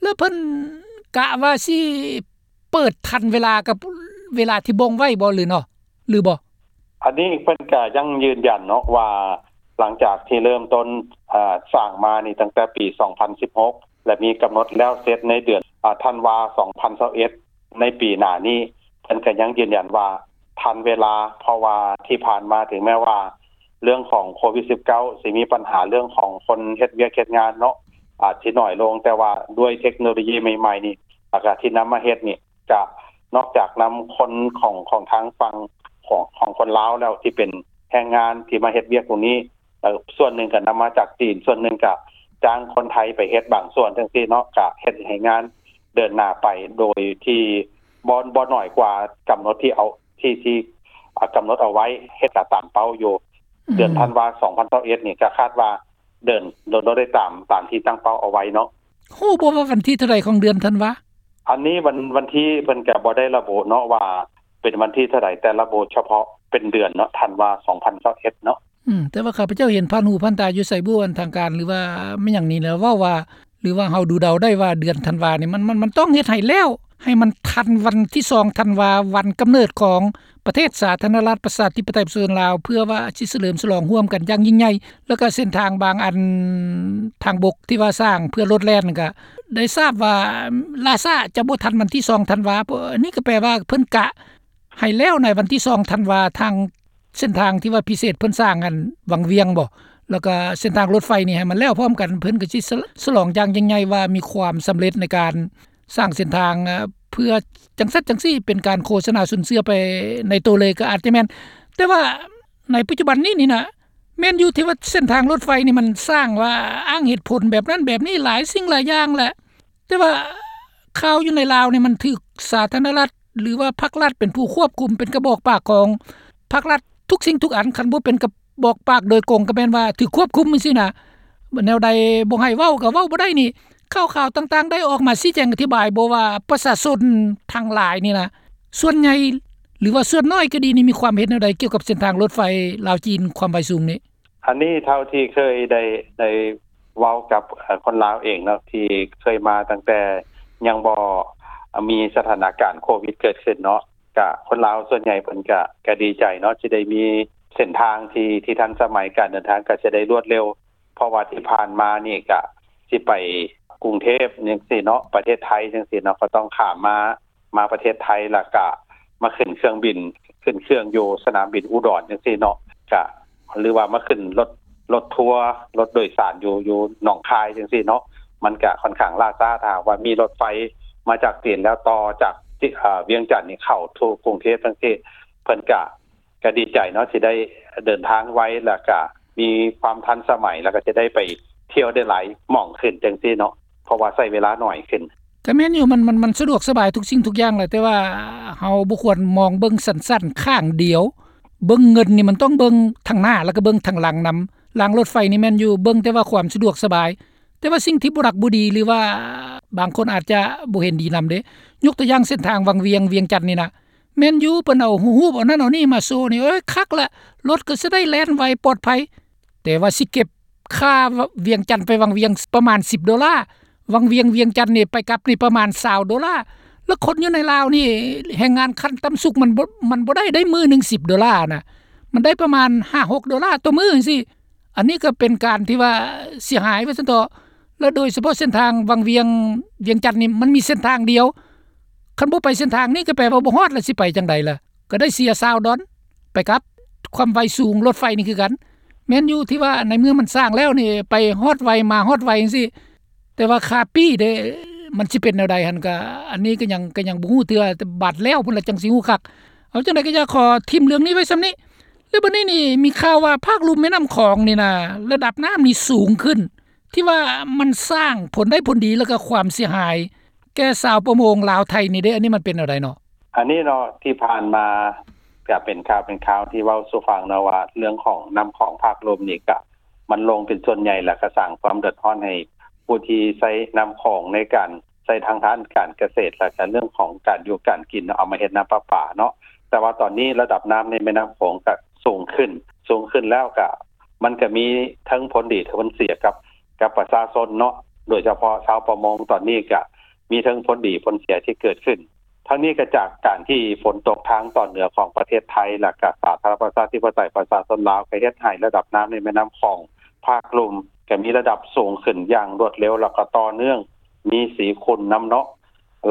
ແລ້ວເພິ່ນກະວ່າຊິ ເປີດທັນເວລາກັບເວລາທີ່ບົ່ງໄວ້ບໍ່ ຫຼືເນາະ ຫຼືບໍ່? ອັນນີ້ເພິ່ນກະຍັງຢືນຢັນເນາະວ່າ ຫຼັງຈາກທີ່ເລີ່ມຕົ້ນ ເອີ ສ້າງມານີ້ຕັ້ງແຕ່ປີສອງພັນສິບຫົກ ແລະ ມີກຳນົດແລ້ວເສັດໃນເດືອນ ອາ ທັນວາ ສອງພັນຊາວເອັດ ໃນປີໜ້ານີ້ ເພິ່ນກະຍັງຢືນຢັນວ່າທັນເວລາ ເພາະວ່າທີ່ຜ່ານມາ ເຖິງແມ້ວ່າເລື່ອງຂອງໂຄວິດ-ສິບເກົ້າ ຊິມີບັນຫາເລື່ອງຂອງຄົນເຮັດວຽກເຮັດງານເນາະ ອາດຊິໜ້ອຍລົງ ແຕ່ວ່າດ້ວຍເທັກໂນໂລຢີໃໝ່ໆນີ້ ແລ້ວກະທີ່ນຳມາເຮັດນີ້ ກະນອກຈາກນຳຄົນຂອງ ຂອງທາງຝັ່ງຂອງ ຂອງຄົນລາວແລ້ວ ທີ່ເປັນແຮງງານທີ່ມາເຮັດວຽກຕົງນີ້ ແລ້ວສ່ວນໜຶ່ງກະນຳມາຈາກຈີນ ສ່ວນໜຶ່ງກະຈ້າງຄົນໄທໄປເຮັດບາງສ່ວນຈັ່ງຊີ້ເນາະ ກະເຮັດໃຫ້ງານເດີນໜ້າໄປໂດຍທີ່ບໍ່ ບໍ່ໜ້ອຍກວ່າກຳນົດທີ່ເອົາ ທີ່ ທີ່ ອາ ກຳນົດເອົາໄວ້ ເຮັດກະຕາມເປົ້າຢູ່. ອືມ ເດືອນທັນວາ ສອງພັນຊາວເອັດນີ້ ກະຄາດວ່າເດີນ ເດີນໄດ້ຕາມ ຕາມທີ່ຕັ້ງເປົ້າເອົາໄວ້ເນາະ. ຮູ້ບໍ່ວ່າວັນທີເທົ່າໃດຂອງເດືອນທັນວາ? ອັນນີ້ວັນ ວັນທີເພິ່ນກະບໍ່ໄດ້ລະບຸເນາະວ່າເປັນວັນທີເທົ່າໃດ ແຕ່ລະບຸສະເພາະເປັນເດືອນເນາະ ທັນວາ ສອງພັນຊາວເອັດເນາະ. ອືມ ແຕ່ວ່າຂ້າພະເຈົ້າເຫັນຜ່ານຫູຜ່ານຕາຢູ່ໃສບຸ ອັນທາງການ ຫຼືວ່າແມ່ນຫຍັງນີ້ແຫຼະ ເວົ້າວ່າ ຫຼືວ່າເຮົາດູເດົາໄດ້ວ່າເດືອນທັນວານີ້ ມັນ ມັນ ມັນຕ້ອງເຮັດໃຫ້ແລ້ວ ໃຫ້ມັນທັນວັນທີສອງທັນວາ ວັນກຳເນີດຂອງ ປະເທດສາທາລະນະລັດ ປະຊາທິປະໄຕ ປະຊາຊົນລາວ ເພື່ອວ່າຊິສະເຫຼີມສະຫຼອງຮ່ວມກັນຢ່າງຍິ່ງໃຫຍ່ ແລ້ວກໍເສັ້ນທາງບາງອັນ ທາງບົກທີ່ວ່າສ້າງເພື່ອລົດແລ່ນນັ້ນ ກໍໄດ້ຊາບວ່າລ່າຊ້າຈະບໍ່ທັນວັນທີສອງທັນວາ. ອັນນີ້ກໍແປວ່າເພິ່ນກະໃຫ້ແລ້ວໃນວັນທີສອງທັນວາ ທາງເສັ້ນທາງທີ່ວ່າພິເສດເພິ່ນສ້າງອັນວັງວຽງບໍ ແລ້ວກໍເສັ້ນທາງລົດໄຟນີ້ໃຫ້ມັນແລ້ວພ້ອມກັນ ເພິ່ນກໍຊິສະ ສະຫຼອງຢ່າງຍິ່ງໃຫຍ່ວ່າມີຄວາມສຳເລັດໃນການ ສ້າງເສັ້ນທາງ ເອີ ເພື່ອຈັ່ງຊັ້ນຈັ່ງຊີ້ ເປັນການໂຄສະນາຊົນເຊື່ອໄປໃນໂຕເລີຍກໍອາດຈະແມ່ນ. ແຕ່ວ່າໃນປັດຈຸບັນນີ້ນີ້ນະ ແມ່ນຢູ່ທີ່ວ່າເສັ້ນທາງລົດໄຟນີ້ມັນສ້າງວ່າອ້າງເຫດຜົນແບບນັ້ນແບບນີ້ ຫຼາຍສິ່ງຫຼາຍຢ່າງແຫຼະ ແຕ່ວ່າຂ່າວຢູ່ໃນລາວນີ້ມັນຖືກສາທາລະນະລັດ ຫຼືວ່າພັກລັດເປັນຜູ້ຄວບຄຸມ ເປັນກະບອກປາກຂອງພັກລັດທຸກສິ່ງທຸກອັນ ຄັນບໍ່ເປັນກະບອກປາກໂດຍກົງກໍແມ່ນວ່າຖືກຄວບຄຸມຈັ່ງຊີ້ນະ ແນວໃດບໍ່ໃຫ້ເວົ້າກໍເວົ້າບໍ່ໄດ້ນີ້. ຂ່າວຕ່າງໆ ໄດ້ອອກມາຊີ້ແຈງອະທິບາຍບໍ່ວ່າປະຊາຊົນທັງຫຼາຍນີ້ນະ ສ່ວນໃຫຍ່ ຫຼືວ່າສ່ວນໜ້ອຍກໍດີນີ້ ມີຄວາມເຫັນແນວໃດກ່ຽວກັບເສັ້ນທາງລົດໄຟລາວຈີນຄວາມໄວສູງນີ້? ອັນນີ້ເທົ່າທີ່ເຄີຍໄດ້ ໄດ້ເວົ້າກັບ ເອີ່ ຄົນລາວເອງເນາະ ທີ່ເຄີຍມາຕັ້ງແຕ່ຍັງບໍ່ມີສະຖານະການໂຄວິດເກີດຂຶ້ນເນາະ ກະຄົນລາວສ່ວນໃຫຍ່ເພິ່ນກະ ກະດີໃຈເນາະ ທີ່ໄດ້ມີເສັ້ນທາງທີ່ ທີ່ທັນສະໄໝ ການເດີນທາງກະຈະໄດ້ລວດເລັວ ເພາະວ່າທີ່ຜ່ານມານີ້ກະຊິໄປກຸງເທບຈັ່ງຊີ້ເນາະ ປະເທດໄທຈັ່ງຊີ້ເນາະ ກໍຕ້ອງຂ້າມມາ ມາປະເທດໄທ ແລ້ວກະມາຂຶ້ນເຄື່ອງບິນ ຂຶ້ນເຄື່ອງຢູ່ສະໜາມບິນອຸດອນຈັ່ງຊີ້ເນາະ ກະ ຫຼືວ່າມາຂຶ້ນລົດ ລົດທົວ ລົດໂດຍສານຢູ່ ຢູ່ໜອງຄາຍຈັ່ງຊີ້ເນາະ ມັນກະຂ້ອນຂ້າງລ່າຊ້າ ຖ້າຫາກວ່າມີລົດໄຟມາຈາກຈີນ ແລ້ວຕໍ່ຈາກ ເອີ່ ວຽງຈັນນີ້ເຂົ້າສູ່ກຸງເທບຈັ່ງຊີ້ ເພິ່ນກະ ກະດີໃຈເນາະ ທີ່ໄດ້ເດີນທາງໄວ ແລ້ວກະມີຄວາມທັນສະໄໝ ແລ້ວກະຈະໄດ້ໄປທ່ຽວໄດ້ຫຼາຍໝ່ອງຂຶ້ນຈັ່ງຊີ້ເນາະ ເພາະວ່າໃຊ້ເວລາໜ້ອຍຂຶ້ນ. ກະແມ່ນຢູ່ ມັນ ມັນ ມັນສະດວກສະບາຍທຸກສິ່ງທຸກຢ່າງແຫຼະ ແຕ່ວ່າເຮົາບໍ່ຄວນມອງເບິ່ງສັ້ນໆ ຂ້າງດຽວ ເບິ່ງເງິນນີ້ມັນຕ້ອງເບິ່ງທາງໜ້າ ແລ້ວກະເບິ່ງທາງຫຼັງນຳ. ລາງລົດໄຟນີ້ແມ່ນຢູ່ ເບິ່ງແຕ່ວ່າຄວາມສະດວກສະບາຍ ແຕ່ວ່າສິ່ງທີ່ບໍ່ຮັກບໍ່ດີ ຫຼືວ່າບາງຄົນອາດຈະບໍ່ເຫັນດີນຳເດ້ ຍົກຕົວຢ່າງເສັ້ນທາງວັງວຽງ ວຽງຈັນນີ້ນະ ແມ່ນຢູ່ ເພິ່ນເອົາຮູບ ເອົານັ້ນເອົານີ້ມາໂຊນີ້ ເອີຍ ຄັກລະ ລົດກໍຊິໄດ້ແລ່ນໄວປອດໄພ ແຕ່ວ່າຊິເກັບຄ່າວຽງຈັນໄປວັງວຽງປະມານສິບໂດລາ ວັງວຽງ ວຽງຈັນນີ້ໄປກັບນີ້ປະມານຊາວໂດລາ ແລ້ວຄົນຢູ່ໃນລາວນີ້ ແຮງງານຂັ້ນຕ່ຳສຸດມັນບໍ່ ມັນບໍ່ໄດ້ ໄດ້ມື້ໜຶ່ງສິບໂດລານະ ມັນໄດ້ປະມານຫ້າຫົກໂດລາຕໍ່ມື້ຈັ່ງຊີ້. ອັນນີ້ກໍເປັນການທີ່ວ່າເສຍຫາຍວ່າຊັ້ນເຖາະ ແລະ ໂດຍສະເພາະເສັ້ນທາງວັງວຽງ ວຽງຈັນນີ້ ມັນມີເສັ້ນທາງດຽວ ຄັນບໍ່ໄປເສັ້ນທາງນີ້ກໍແປວ່າບໍ່ຮອດ ແລ້ວຊິໄປຈັ່ງໃດລະ? ກໍໄດ້ເສຍຊາວດອນ ໄປກັບ ຄວາມໄວສູງລົດໄຟນີ້ຄືກັນ. ແມ່ນຢູ່ທີ່ວ່າໃນເມື່ອມັນສ້າງແລ້ວນີ້ ໄປຮອດໄວມາຮອດໄວຈັ່ງຊີ້ ແຕ່ວ່າຄ່າປີ້ເດ້ ມັນຊິເປັນແນວໃດຫັ້ນ ກໍອັນນີ້ກໍຍັງ ກໍຍັງບໍ່ຮູ້ເທື່ອ ແຕ່ບາດແລ້ວພຸ້ນລະຈັ່ງຊິຮູ້ຄັກ. ເອົາ ຈັ່ງໃດກໍຢາກຂໍຖິ້ມເລື່ອງນີ້ໄວ້ສ່ຳນີ້ ແລ້ວບັດນີ້ນີ້ມີຂ່າວວ່າພາກລຸ່ມແມ່ນ້ຳຂອງນີ້ນະ ລະດັບນ້ຳນີ້ສູງຂຶ້ນ ທີ່ວ່າມັນສ້າງຜົນໄດ້ຜົນດີ ແລ້ວກໍຄວາມເສຍຫາຍແກ່ຊາວປະມົງລາວໄທນີ້ເດ້ ອັນນີ້ມັນເປັນແນວໃດເນາະ? ອັນນີ້ເນາະ ທີ່ຜ່ານມາກະເປັນຂ່າວເປັນຄາວທີ່ເວົ້າສູ່ຟັງເນາະວ່າ ເລື່ອງຂອງນ້ຳຂອງພາກລຸ່ມນີ້ກະ ມັນລົງເປັນສ່ວນໃຫຍ່ ແລ້ວກະສ້າງຄວາມເດືອດຮ້ອນໃຫ້ຜູ້ທີ່ໃຊ້ນ້ຳຂອງໃນການ ໃຊ້ທາງດ້ານການກະເສດ ແລ້ວກະເລື່ອງຂອງການຢູ່ການກິນເນາະ ເອົາມາເຮັດນ້ຳປະປາເນາະ. ແຕ່ວ່າຕອນນີ້ລະດັບນ້ຳໃນແມ່ນ້ຳຂອງກະສູງຂຶ້ນ ສູງຂຶ້ນແລ້ວກະ ມັນກະມີເຖິງຜົນດີເຖິງຜົນເສຍກັບ ກັບປະຊາຊົນເນາະ ໂດຍສະເພາະຊາວປະມົງ ຕອນນີ້ກະມີເຖິງຜົນດີຜົນເສຍທີ່ເກີດຂຶ້ນ. ທັງນີ້ກະຈາກການທີ່ຝົນຕົກທາງຕອນເໜືອຂອງປະເທດໄທ ແລ້ວກະສາທາລະນະລັດປະຊາທິປະໄຕປະຊາຊົນລາວ ກະເຮັດໃຫ້ລະດັບນ້ຳໃນແມ່ນ້ຳຂອງພາກລຸ່ມ ກະມີລະດັບສູງຂຶ້ນຢ່າງລວດເລັວ ແລ້ວກະຕໍ່ເນື່ອງ ມີສີຂຸ່ນນຳເນາະ.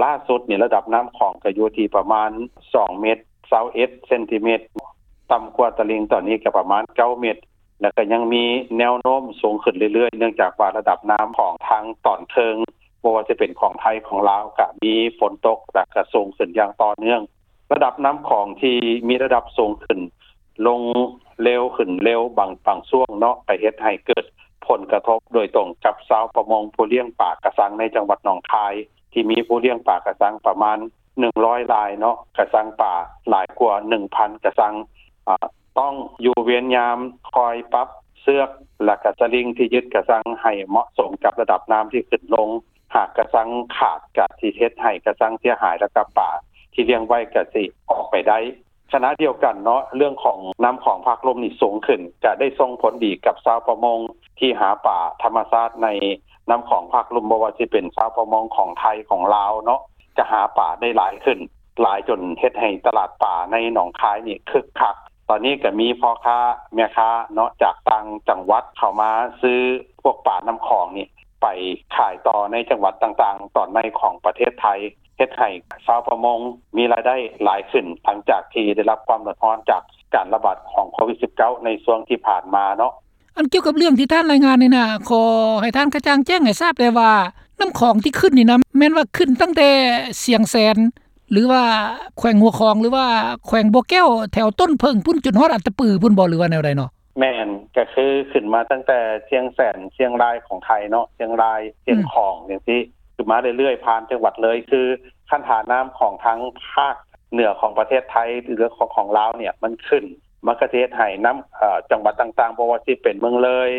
ລ່າສຸດນີ້ລະດັບນ້ຳຂອງກະຢູ່ທີ່ປະມານສອງເມັດຊາວເອັດເຊັນຕີເມັດ ຕ່ຳກວ່າຕະລິ່ງຕອນນີ້ກະປະມານເກົ້າເມັດ ແລ້ວກະຍັງມີແນວໂນ້ມສູງຂຶ້ນເລື້ອຍໆ ເນື່ອງຈາກວ່າລະດັບນ້ຳຂອງທາງຕອນເທິງ ບໍ່ວ່າຈະເປັນຂອງໄທຂອງລາວ ກະມີຝົນຕົກ ແລ້ວກະສູງຂຶ້ນຢ່າງຕໍ່ເນື່ອງ. ລະດັບນ້ຳຂອງທີ່ມີລະດັບສູງຂຶ້ນ ລົງເລັວ ຂຶ້ນເລັວ ບາງ ບາງຊ່ວງເນາະ ກະເຮັດໃຫ້ເກີດຜົນກະທົບໂດຍຕົງກັບຊາວປະມົງຜູ້ລ້ຽງປາກະຊັງໃນຈັງຫວັດໜອງຄາຍ ທີ່ມີຜູ້ລ້ຽງປາກະຊັງປະມານໜຶ່ງຮ້ອຍລາຍເນາະ ກະຊັງປາຫຼາຍກວ່າໜຶ່ງພັນກະຊັງ ອາ ຕ້ອງຢູ່ເວນຍາມ ຄອຍປັບເຊືອກ ແລະກະສະລິງທີ່ຍຶດກະຊັງໃຫ້ເໝາະສົມກັບລະດັບນ້ຳທີ່ຂຶ້ນລົງ. ຫາກກະຊັງຂາດກະຊິເຮັດໃຫ້ກະຊັງເສຍຫາຍ ແລະກະປາທີ່ລ້ຽງໄວ້ກະຊິອອກໄປໄດ້. ຂະນະດຽວກັນເນາະ ເລື່ອງຂອງນ້ຳຂອງພາກລຸ່ມນີ້ສູງຂຶ້ນ ກະໄດ້ສົ່ງຜົນດີກັບຊາວປະມົງທີ່ຫາປາທຳມະຊາດໃນນ້ຳຂອງພາກລຸ່ມ ບໍ່ວ່າຊິເປັນຊາວປະມົງຂອງໄທຂອງລາວເນາະ ກະຫາປາໄດ້ຫຼາຍຂຶ້ນ ຫຼາຍຈົນເຮັດໃຫ້ຕະຫຼາດປາໃນໜອງຄາຍນີ້ຄຶກຄັກ. ຕອນນີ້ກະມີພໍ່ຄ້າແມ່ຄ້າເນາະ ຈາກຕ່າງຈັງຫວັດເຂົ້າມາຊື້ພວກປານ້ຳຂອງນີ້ ໄປຂາຍຕໍ່ໃນຈັງຫວັດຕ່າງໆ ຕອນໃນຂອງປະເທດໄທ ເຮັດໃຫ້ຊາວປະມົງມີລາຍໄດ້ຫຼາຍຂຶ້ນ ຫຼັງຈາກທີ່ໄດ້ຮັບຄວາມເດືອດຮ້ອນຈາກການລະບາດຂອງໂຄວິດສິບເກົ້າ ໃນຊ່ວງທີ່ຜ່ານມາເນາະ. ອັນກ່ຽວກັບເລື່ອງທີ່ທ່ານລາຍງານນີ້ນະ ຂໍໃຫ້ທ່ານກະຈ່າງແຈ້ງໃຫ້ຊາບແດ່ວ່າ ນ້ຳຂອງທີ່ຂຶ້ນນີ້ນະ ແມ່ນວ່າຂຶ້ນຕັ້ງແຕ່ຊຽງແສນ ຫຼືວ່າແຂວງຫົວຂອງ ຫຼືວ່າແຂວງບໍ່ແກ້ວ ແຖວຕົ້ນເຜິ້ງພຸ້ນ ຈົນຮອດອັດຕະປືພຸ້ນບໍ່ ຫຼືວ່າແນວໃດເນາະ? ແມ່ນ ກະຄືຂຶ້ນມາຕັ້ງແຕ່ຊຽງແສນ ຊຽງລາຍຂອງໄທເນາະ ຊຽງລາຍ ຊຽງຂອງ ອືມ ຈັ່ງຊີ້ ຂຶ້ນມາເລື້ອຍໆ ຜ່ານຈັງຫວັດເລີຍ ຄືຄັນຖ້ານ້ຳຂອງທາງພາກເໜືອຂອງປະເທດໄທ ຫຼືຂອງ ຂອງລາວນີ້ ມັນຂຶ້ນ ມັນກະຊິເຮັດໃຫ້ນ້ຳ ເອີ່ ຈັງຫວັດຕ່າງໆ ບໍ່ວ່າຊິເປັນເມືອງເລີຍ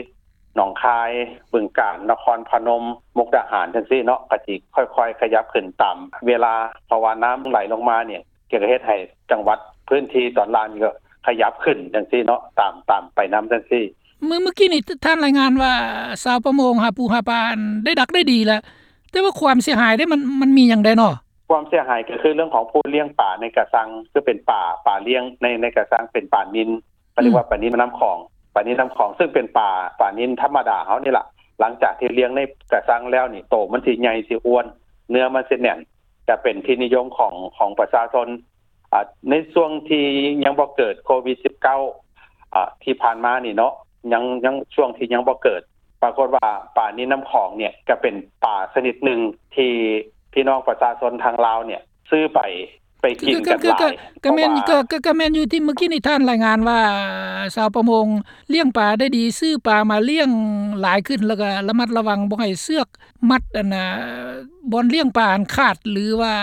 ໜອງຄາຍ, ບຶງການ, ນະຄອນພະນົມ, ມຸກດາຫານ ຈັ່ງຊີ້ເນາະ ກໍຊິຄ່ອຍໆຂະຫຍັບຂຶ້ນຕາມເວລາ ເພາະວ່ານ້ຳໄຫຼລົງມານີ້ ກໍເຮັດໃຫ້ຈັງຫວັດພື້ນທີ່ຕອນລ່າງນີ້ກໍຂະຫຍັບຂຶ້ນຈັ່ງຊີ້ເນາະ ຕາມ ຕາມໄປນຳຈັ່ງຊີ້. ເມື່ອ ເມື່ອກີ້ນີ້ທ່ານລາຍງານວ່າ ຊາວປະມົງຫາປູຫາປາໄດ້ດັກໄດ້ດີແລ້ວ ແຕ່ວ່າຄວາມເສຍຫາຍເດ ມັນ ມັນມີຫຍັງແດ່ເນາະ? ຄວາມເສຍຫາຍກໍຄືເລື່ອງຂອງຜູ້ລ້ຽງປາໃນກະຊັງ ຄືເປັນປາ ປາລ້ຽງໃນ ໃນກະຊັງ ເປັນປານິນ ເຂົາເອີ້ນວ່າ ອືມ ປານິນນ້ຳຂອງ ປານິນນ້ຳຂອງ ຊຶ່ງເປັນປາ ປານິນທຳມະດາເຮົານີ້ລະ ຫຼັງຈາກທີ່ລ້ຽງໃນກະຊັງແລ້ວນີ້ ໂຕມັນຊິໃຫຍ່ ຊິອ້ວນ ເນື້ອມັນຊິແໜ້ນ ກະເປັນທີ່ນິຍົມຂອງ ຂອງປະຊາຊົນ. ອາ ໃນຊ່ວງທີ່ຍັງບໍ່ເກີດໂຄວິດສິບເກົ້າ ອາ ທີ່ຜ່ານມານີ້ເນາະ ຍັງ ຍັງ ຊ່ວງທີ່ຍັງບໍ່ເກີດ ປາກົດວ່າປານິນນ້ຳຂອງນີ້ກະເປັນປາຊະນິດໜຶ່ງທີ່ພີ່ນ້ອງປະຊາຊົນທາງລາວນີ້ຊື້ໄປ ໄປກິນກັນຫຼາຍ ກໍ ກໍ ກໍແມ່ນ ເພາະວ່າ ກໍ ກໍ ກໍແມ່ນຢູ່ທີ່ເມື່ອກີ້ນີ້ທ່ານລາຍງານວ່າ ຊາວປະມົງລ້ຽງປາໄດ້ດີ ຊື້ປາມາລ້ຽງຫຼາຍຂຶ້ນ ແລ້ວກໍລະມັດລະວັງບໍ່ໃຫ້ເຊືອກມັດ ອັນນ່າ ບ່ອນລ້ຽງປາຫັ້ນຂາດ ຫຼືວ່າ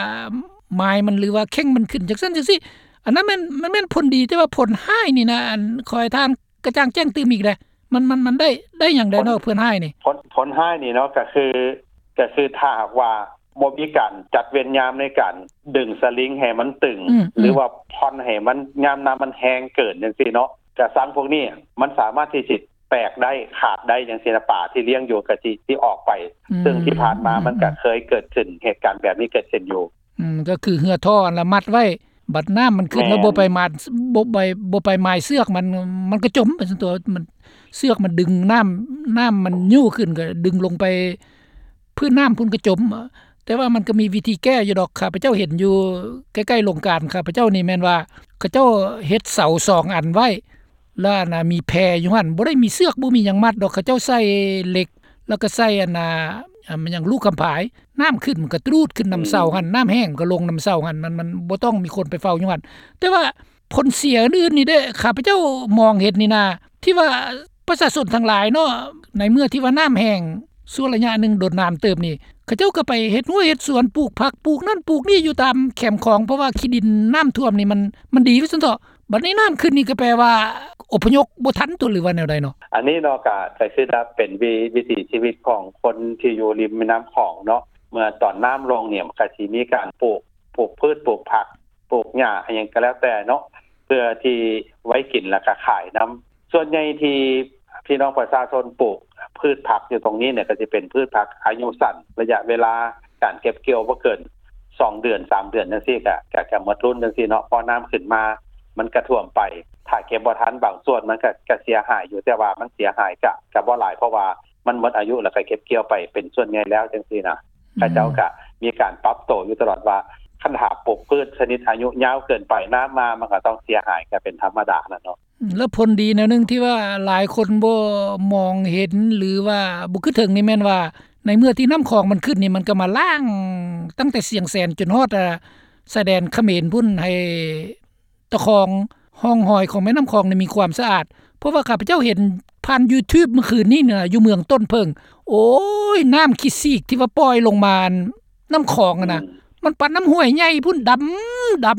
ໝາຍມັນ ຫຼືວ່າເຄັ່ງມັນຂຶ້ນ ຈັ່ງຊັ້ນຈັ່ງຊີ້ ອັນນັ້ນແມ່ນ ມັນແມ່ນຜົນດີ ແຕ່ວ່າຜົນຮ້າຍນີ້ນະ ອັນ ຂໍໃຫ້ທ່ານກະຈ່າງແຈ້ງຕື່ມອີກແດ່ ມັນ ມັນ ມັນໄດ້ ໄດ້ຫຍັງແດ່ເນາະ ຜົນ ຜົນຮ້າຍນີ້? ຜົນ ຜົນຮ້າຍນີ້ເນາະ ກໍຄື ກໍຄືຖ້າຫາກວ່າບໍ່ມີການຈັດເວນຍາມໃນການດຶງສະລິງໃຫ້ມັນຕຶງ ອືມ ຫຼືວ່າຜ່ອນໃຫ້ມັນ ຍາມນ້ຳມັນແຮງເກີນຈັ່ງຊີ້ເນາະ ກະຊັງພວກນີ້ມັນສາມາດທີ່ຊິແຕກໄດ້ ຂາດໄດ້ຈັ່ງຊີ້ນະ ປາທີ່ລ້ຽງຢູ່ກໍຊິ ຊິອອກໄປ ອືມ ຊຶ່ງທີ່ຜ່ານມາມັນກໍເຄີຍເກີດຂຶ້ນ ເຫດການແບບນີ້ເກີດຂຶ້ນຢູ່. ອືມ ກໍຄືເຮືອທໍ່ຫັ້ນລະມັດໄວ້ ບັດນ້ຳມັນຂຶ້ນ ແມ່ນ ແລ້ວບໍ່ໄປມາດ ບໍ່ໄປ ບໍ່ໄປໝາຍເຊືອກມັນ ມັນກໍຈົມໄປຊັ້ນຕົວະ ມັນ ເຊືອກມັນດຶງນ້ຳ ນ້ຳມັນຍູ້ຂຶ້ນກໍດຶງລົງໄປພື້ນນ້ຳພຸ້ນກໍຈົມ. ແຕ່ວ່າມັນກໍມີວິທີແກ້ຢູ່ດອກ ຂ້າພະເຈົ້າເຫັນຢູ່ໃກ້ໆໂລງການ ຂ້າພະເຈົ້ານີ້ແມ່ນວ່າ ເຂົາເຈົ້າເຮັດເສົາສອງອັນໄວ້ ແລ້ວອັນນ່າ ມີແພຢູ່ຫັ້ນ ບໍ່ໄດ້ມີເຊືອກ ບໍ່ມີຫຍັງມັດດອກ ເຂົາເຈົ້າໃສ່ເຫຼັກ ແລ້ວກໍໃສ່ອັນນ່າ ອາ ແມ່ນຫຍັງ ລູກຄຳພາຍ ນ້ຳຂຶ້ນມັນກໍຕຣູດຂຶ້ນນຳເສົາຫັ້ນ ອືມ ນ້ຳແຫ້ງມັນກໍລົງນຳເສົາຫັ້ນ ມັນ ມັນບໍ່ຕ້ອງມີຄົນໄປເຝົ້າຢູ່ຫັ້ນ. ແຕ່ວ່າຜົນເສຍອື່ນໆນີ້ເດ້ ຂ້າພະເຈົ້າມອງເຫັນນີ້ນາ ທີ່ວ່າປະຊາຊົນທັງຫຼາຍເນາະ ໃນເມື່ອທີ່ວ່ານ້ຳແຫ້ງຊົ່ວໄລຍະໜຶ່ງດົນນານເຕີບນີ້ ເຂົາເຈົ້າກໍໄປເຮັດຮົ້ວເຮັດສວນ ປູກຜັກ ປູກນັ້ນປູກນີ້ຢູ່ຕາມແຄມຂອງ ເພາະວ່າຂີ້ດິນນ້ຳຖ້ວມນີ້ມັນ ມັນດີວ່າຊັ້ນເຖາະ. ບັດນີ້ນ້ຳຂຶ້ນນີ້ກໍແປວ່າອົບພະຍົບບໍ່ທັນຕົວະ ຫຼືວ່າແນວໃດເນາະ? ອັນນີ້ເນາະ ກະ ກະຄືວ່າເປັນວິ ວິຖີຊີວິດຂອງຄົນທີ່ຢູ່ລິມແມ່ນ້ຳຂອງເນາະ ເມື່ອຕອນນ້ຳລົງນີ້ ມັນກະຊິມີການປູກ ປູກພືດ ປູກຜັກ ປູກຫຍ້າ ອີ່ຫຍັງກໍແລ້ວແຕ່ເນາະ ເພື່ອທີ່ໄວ້ກິນ ແລ້ວກະຂາຍນຳ. ສ່ວນໃຫຍ່ທີ່ພີ່ນ້ອງປະຊາຊົນປູກພືດຜັກຢູ່ຕົງນີ້ນີ້ ກະຊິເປັນພືດຜັກອາຍຸສັ້ນ ໄລຍະເວລາການເກັບກ່ຽວບໍ່ເກີນສອງເດືອນ ສາມເດືອນຈັ່ງຊີ້ ກະ ກະ ກະໝົດລຸ້ນຈັ່ງຊີ້ເນາະ ເພາະນ້ຳຂຶ້ນມາ ມັນກະຖ້ວມໄປ ຖ້າເກັບບໍ່ທັນບາງສ່ວນມັນກະ ກະເສຍຫາຍຢູ່ ແຕ່ວ່າມັນເສຍຫາຍກະ ກະບໍ່ຫຼາຍ ເພາະວ່າມັນໝົດອາຍຸ ແລ້ວກະເກັບກ່ຽວໄປເປັນສ່ວນໃຫຍ່ແລ້ວຈັ່ງຊີ້ນະ. ອືມ ເຂົາເຈົ້າກະມີການປັບໂຕຢູ່ຕະຫຼອດວ່າ ຄັນຖ້າປູກພືດຊະນິດອາຍຸຍາວເກີນໄປ ນ້ຳມາມັນກະຕ້ອງເສຍຫາຍ ກະເປັນທຳມະດາຫັ້ນເນາະ. ແລ້ວຜົນດີແນວໜຶ່ງທີ່ວ່າຫຼາຍຄົນບໍ່ມອງເຫັນ ຫຼືວ່າບໍ່ຄິດເຖິງນີ້ແມ່ນວ່າ ໃນເມື່ອທີ່ນ້ຳຂອງມັນຂຶ້ນນີ້ ມັນກໍມາລ້າງຕັ້ງແຕ່ຊຽງແສນຈົນຮອດ ອາ ຊາຍແດນຂະເໝນພຸ້ນ ໃຫ້ຕະຄອງຮ່ອງຮອຍຂອງແມ່ນ້ຳຂອງນີ້ມີຄວາມສະອາດ. ເພາະວ່າຂ້າພະເຈົ້າເຫັນຜ່ານ YouTube ມື້ຄືນນີ້ນະ ຢູ່ເມືອງຕົ້ນເຜິ້ງ ໂອ້ຍ ນ້ຳຂີ້ຊີກທີ່ວ່າປ່ອຍລົງມາ ນ້ຳຂອງຫັ້ນນະ ອືມ ມັນປານນ້ຳຫ້ວຍໃຫຍ່ພຸ້ນ ດຳ ດຳ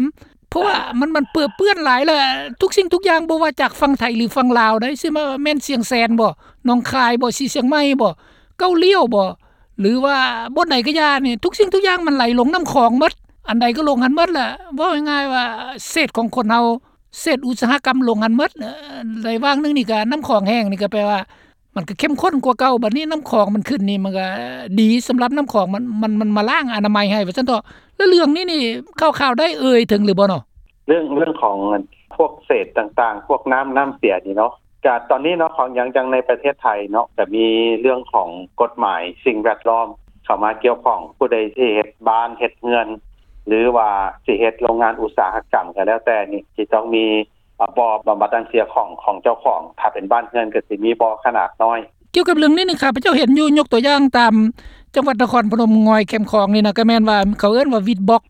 ເພາະວ່າມັນ ມັນເປິເປື້ອນຫຼາຍ ແລ້ວທຸກສິ່ງທຸກຢ່າງ ບໍ່ວ່າຈາກຝັ່ງໄທ ຫຼື ຝັ່ງລາວໃດ໋ ຊິວ່າແມ່ນຊຽງແສນບໍ ໜອງຄາຍບໍ ສີຊຽງໃໝ່ບໍ ເກົ້າລ້ຽວບໍ ຫຼືວ່າບ່ອນໃດກໍຢ່ານີ້ ທຸກສິ່ງທຸກຢ່າງມັນໄຫຼລົງນ້ຳຂອງໝົດ ອັນໃດກໍລົງຫັ້ນໝົດແຫຼະ. ເວົ້າງ່າຍໆວ່າເສດຂອງຄົນເຮົາ ເສດອຸດສາຫະກຳລົງຫັ້ນໝົດ. ເອີ ໃນຫວ່າງໜຶ່ງນີ້ກໍນ້ຳຂອງແຫ້ງ ນີ້ກໍແປວ່າ ມັນກໍເຂັ້ມຂຸ້ນກວ່າເກົ່າ ບັດນີ້ນ້ຳຂອງມັນຂຶ້ນນີ້ ມັນກໍດີສຳລັບນ້ຳຂອງ ມັນ ມັນ ມັນມາລ້າງອະນາໄມໃຫ້ວ່າຊັ້ນເຖາະ. ແລ້ວເລື່ອງນີ້ນີ້ ຂ່າວໆໄດ້ເອີ່ຍເຖິງຫຼືບໍ່ເນາະ? ເລື່ອງ ເລື່ອງຂອງພວກເສດຕ່າງໆ ພວກນ້ຳ ນ້ຳເສຍນີ້ເນາະ ກະຕອນນີ້ເນາະ ຂອງ ຢ່າງ ຢ່າງໃນປະເທດໄທເນາະ ກະມີເລື່ອງຂອງກົດໝາຍສິ່ງແວດລ້ອມເຂົ້າມາກ່ຽວຂ້ອງ ຜູ້ໃດຊິເຮັດບ້ານເຮັດເຮືອນ ຫຼືວ່າຊິເຮັດໂລງງານອຸດສາຫະກຳກໍແລ້ວແຕ່ນີ້ ຊິຕ້ອງມີ ອາ ບໍ່ບຳບັດນ້ຳເສຍຂອງ ຂອງເຈົ້າຂອງ ຖ້າເປັນບ້ານເຮືອນກໍຊິມີບໍ່ຂະໜາດນ້ອຍ. ກ່ຽວກັບເລື່ອງນີ້ນີ້ ຂ້າພະເຈົ້າເຫັນຢູ່ ຍົກຕົວຢ່າງຕາມຈັງຫວັດນະຄອນພະນົມ ງອຍແຄມຂອງນີ້ນະ ກໍແມ່ນວ່າເຂົາເອີ້ນວ່າ ວິດບັອກ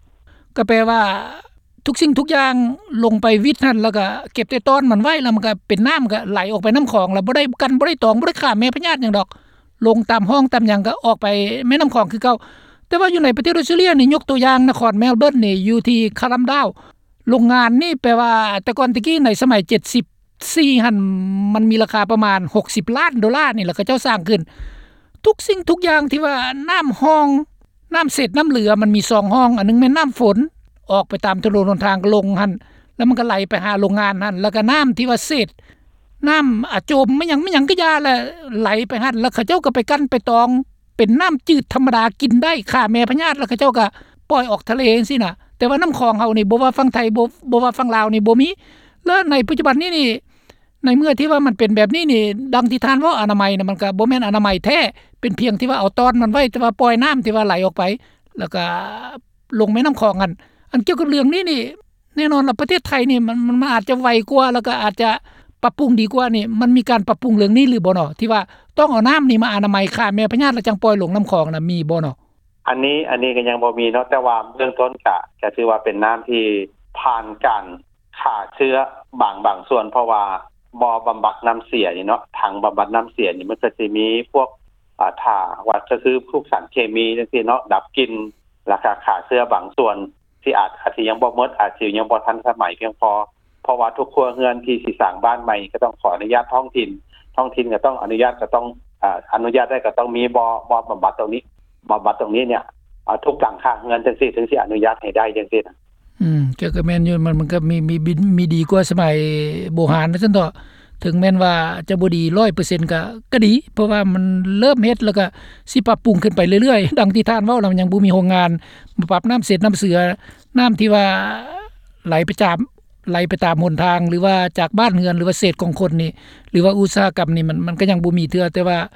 ກໍແປວ່າທຸກສິ່ງທຸກຢ່າງລົງໄປວິດຫັ້ນ ແລ້ວກໍເກັບແຕ່ຕອນມັນໄວ້ ແລ້ວມັນກໍເປັນນ້ຳ ກໍໄຫຼອອກໄປນ້ຳຂອງ ແລ້ວບໍ່ໄດ້ກັນ ບໍ່ໄດ້ຕອງ ບໍ່ໄດ້ຂ້າແມ່ພະຍາດຫຍັງດອກ ລົງຕາມຮ່ອງຕາມຫຍັງກໍອອກໄປແມ່ນ້ຳຂອງຄືເກົ່າ. ແຕ່ວ່າຢູ່ໃນປະເທດອົດສະຕຣາເລຍນີ້ ຍົກຕົວຢ່າງນະຄອນແມລເບີນນີ້ ຢູ່ທີ່ຄາລຳດາວ ໂລງງານນີ້ແປວ່າ ແຕ່ກ່ອນແຕ່ກີ້ໃນສະໄໝເຈັດສິບ ສີ່ຫັ້ນ ມັນມີລາຄາປະມານຫົກສິບລ້ານໂດລານີ້ ແລ້ວເຂົາເຈົ້າສ້າງຂຶ້ນ ທຸກສິ່ງທຸກຢ່າງທີ່ວ່ານ້ຳຮ່ອງ ນ້ຳເສດນ້ຳເຫຼືອ ມັນມີສອງຮ່ອງ ອັນໜຶ່ງແມ່ນນ້ຳຝົນ ອອກໄປຕາມຖະໜົນຫົນທາງກໍລົງຫັ້ນ ແລ້ວມັນກໍໄຫຼໄປຫາໂຮງງານຫັ້ນ ແລ້ວກໍນ້ຳທີ່ວ່າເສດ ນ້ຳອາຈົມ ແມ່ນຫຍັງ ແມ່ນຫຍັງກໍຢ່າແຫຼະ ໄຫຼໄປຫັ້ນ ແລ້ວເຂົາເຈົ້າກໍໄປກັ່ນໄປຕອງ ເປັນນ້ຳຈືດທຳມະດາກິນໄດ້ ຂ້າແມ່ພະຍາດ ແລ້ວເຂົາເຈົ້າກໍປ່ອຍອອກທະເລຈັ່ງຊີ້ນະ. ແຕ່ວ່ານ້ຳຂອງເຮົານີ້ ບໍ່ວ່າຝັ່ງໄທ ບໍ່ ບໍ່ວ່າຝັ່ງລາວນີ້ ບໍ່ມີ. ແລ້ວໃນປັດຈຸບັນນີ້ນີ້ ໃນເມື່ອທີ່ວ່າມັນເປັນແບບນີ້ນີ້ ດັ່ງທີ່ທ່ານເວົ້າ ອະນາໄມນະ ມັນກໍບໍ່ແມ່ນອະນາໄມແທ້ ເປັນພຽງທີ່ວ່າເອົາຕ້ອນມັນໄວ້ ແຕ່ວ່າປ່ອຍນ້ຳທີ່ວ່າໄຫຼອອກໄປ ແລ້ວກໍລົງແມ່ນ້ຳຂອງຫັ້ນ. ອັນກ່ຽວກັບເລື່ອງນີ້ນີ້ ແນ່ນອນລະ ປະເທດໄທນີ້ ມັນ ມັນ ມັນອາດຈະໄວກວ່າ ແລ້ວກໍອາດຈະປັບປຸງດີກວ່ານີ້ ມັນມີການປັບປຸງເລື່ອງນີ້ຫຼືບໍ່ເນາະ ທີ່ວ່າຕ້ອງເອົານ້ຳນີ້ມາອະນາໄມຂ້າແມ່ພະຍາດ ແລ້ວຈັ່ງປ່ອຍລົງນ້ຳຂອງນະ ມີບໍ່ເນາະ? ອັນນີ້ ອັນນີ້ກໍຍັງບໍ່ມີເນາະ ແຕ່ວ່າເບື້ອງຕົ້ນກະ ກະຖືວ່າເປັນນ້ຳທີ່ຜ່ານການຂ້າເຊື້ອບາງ ບາງສ່ວນ ເພາະວ່າບໍ່ບຳບັດນ້ຳເສຍນີ້ເນາະ ຖັງບຳບັດນ້ຳເສຍນີ້ ມັນກໍຊິມີພວກ ອາ ຖ້າວ່າ ກໍຄືພວກສານເຄມີຈັ່ງຊີ້ເນາະ ດັບກິ່ນ ແລ້ວກໍຂ້າເຊື້ອບາງສ່ວນ ທີ່ອາດ ອາດຊິຍັງບໍ່ໝົດ ອາດຊິຍັງບໍ່ທັນສະໄໝພຽງພໍ ເພາະວ່າທຸກຄົວເຮືອນທີ່ຊິສ້າງບ້ານໃໝ່ ກໍຕ້ອງຂໍອະນຸຍາດທ້ອງຖິ່ນ ທ້ອງຖິ່ນກໍຕ້ອງອະນຸຍາດ ກໍຕ້ອງ ອາ ອະນຸຍາດໄດ້ ກໍຕ້ອງມີບໍ່ ບໍ່ບຳບັດຕົງນີ້ ບຳບັດຕົງນີ້ເນຍ ອາ ທຸກຫຼັງຄາເຮືອນຈັ່ງຊີ້ ເຖິງຊິອະນຸຍາດໃຫ້ໄດ້ຈັ່ງຊີ້ນະ. ອືມ ກໍ ກໍແມ່ນຢູ່ ມັນ ມັນກໍມີ ມີ ມີ ມີດີກວ່າສະໄໝໂບຮານວ່າຊັ້ນເຖາະ ເຖິງແມ່ນວ່າຈະບໍ່ດີຮ້ອຍເປີເຊັນກໍ ກໍດີ ເພາະວ່າມັນເລີ່ມເຮັດ ແລ້ວກໍຊິປັບປຸງຂຶ້ນໄປເລື້ອຍໆ ດັ່ງທີ່ທ່ານເວົ້ານະ ມັນຍັງບໍ່ມີໂຮງງານມາປັບນ້ຳເສດນ້ຳເສືອ ນ້ຳທີ່ວ່າໄຫຼໄປຕາມ ໄຫຼໄປຕາມຫົນທາງ ຫຼືວ່າຈາກບ້ານເຮືອນ ຫຼືວ່າເສດຂອງຄົນນີ້ ຫຼືວ່າອຸດສາຫະກຳນີ້ ມັນ ມັນກໍຍັງບໍ່ມີເທື່ອ ແຕ່ວ່າ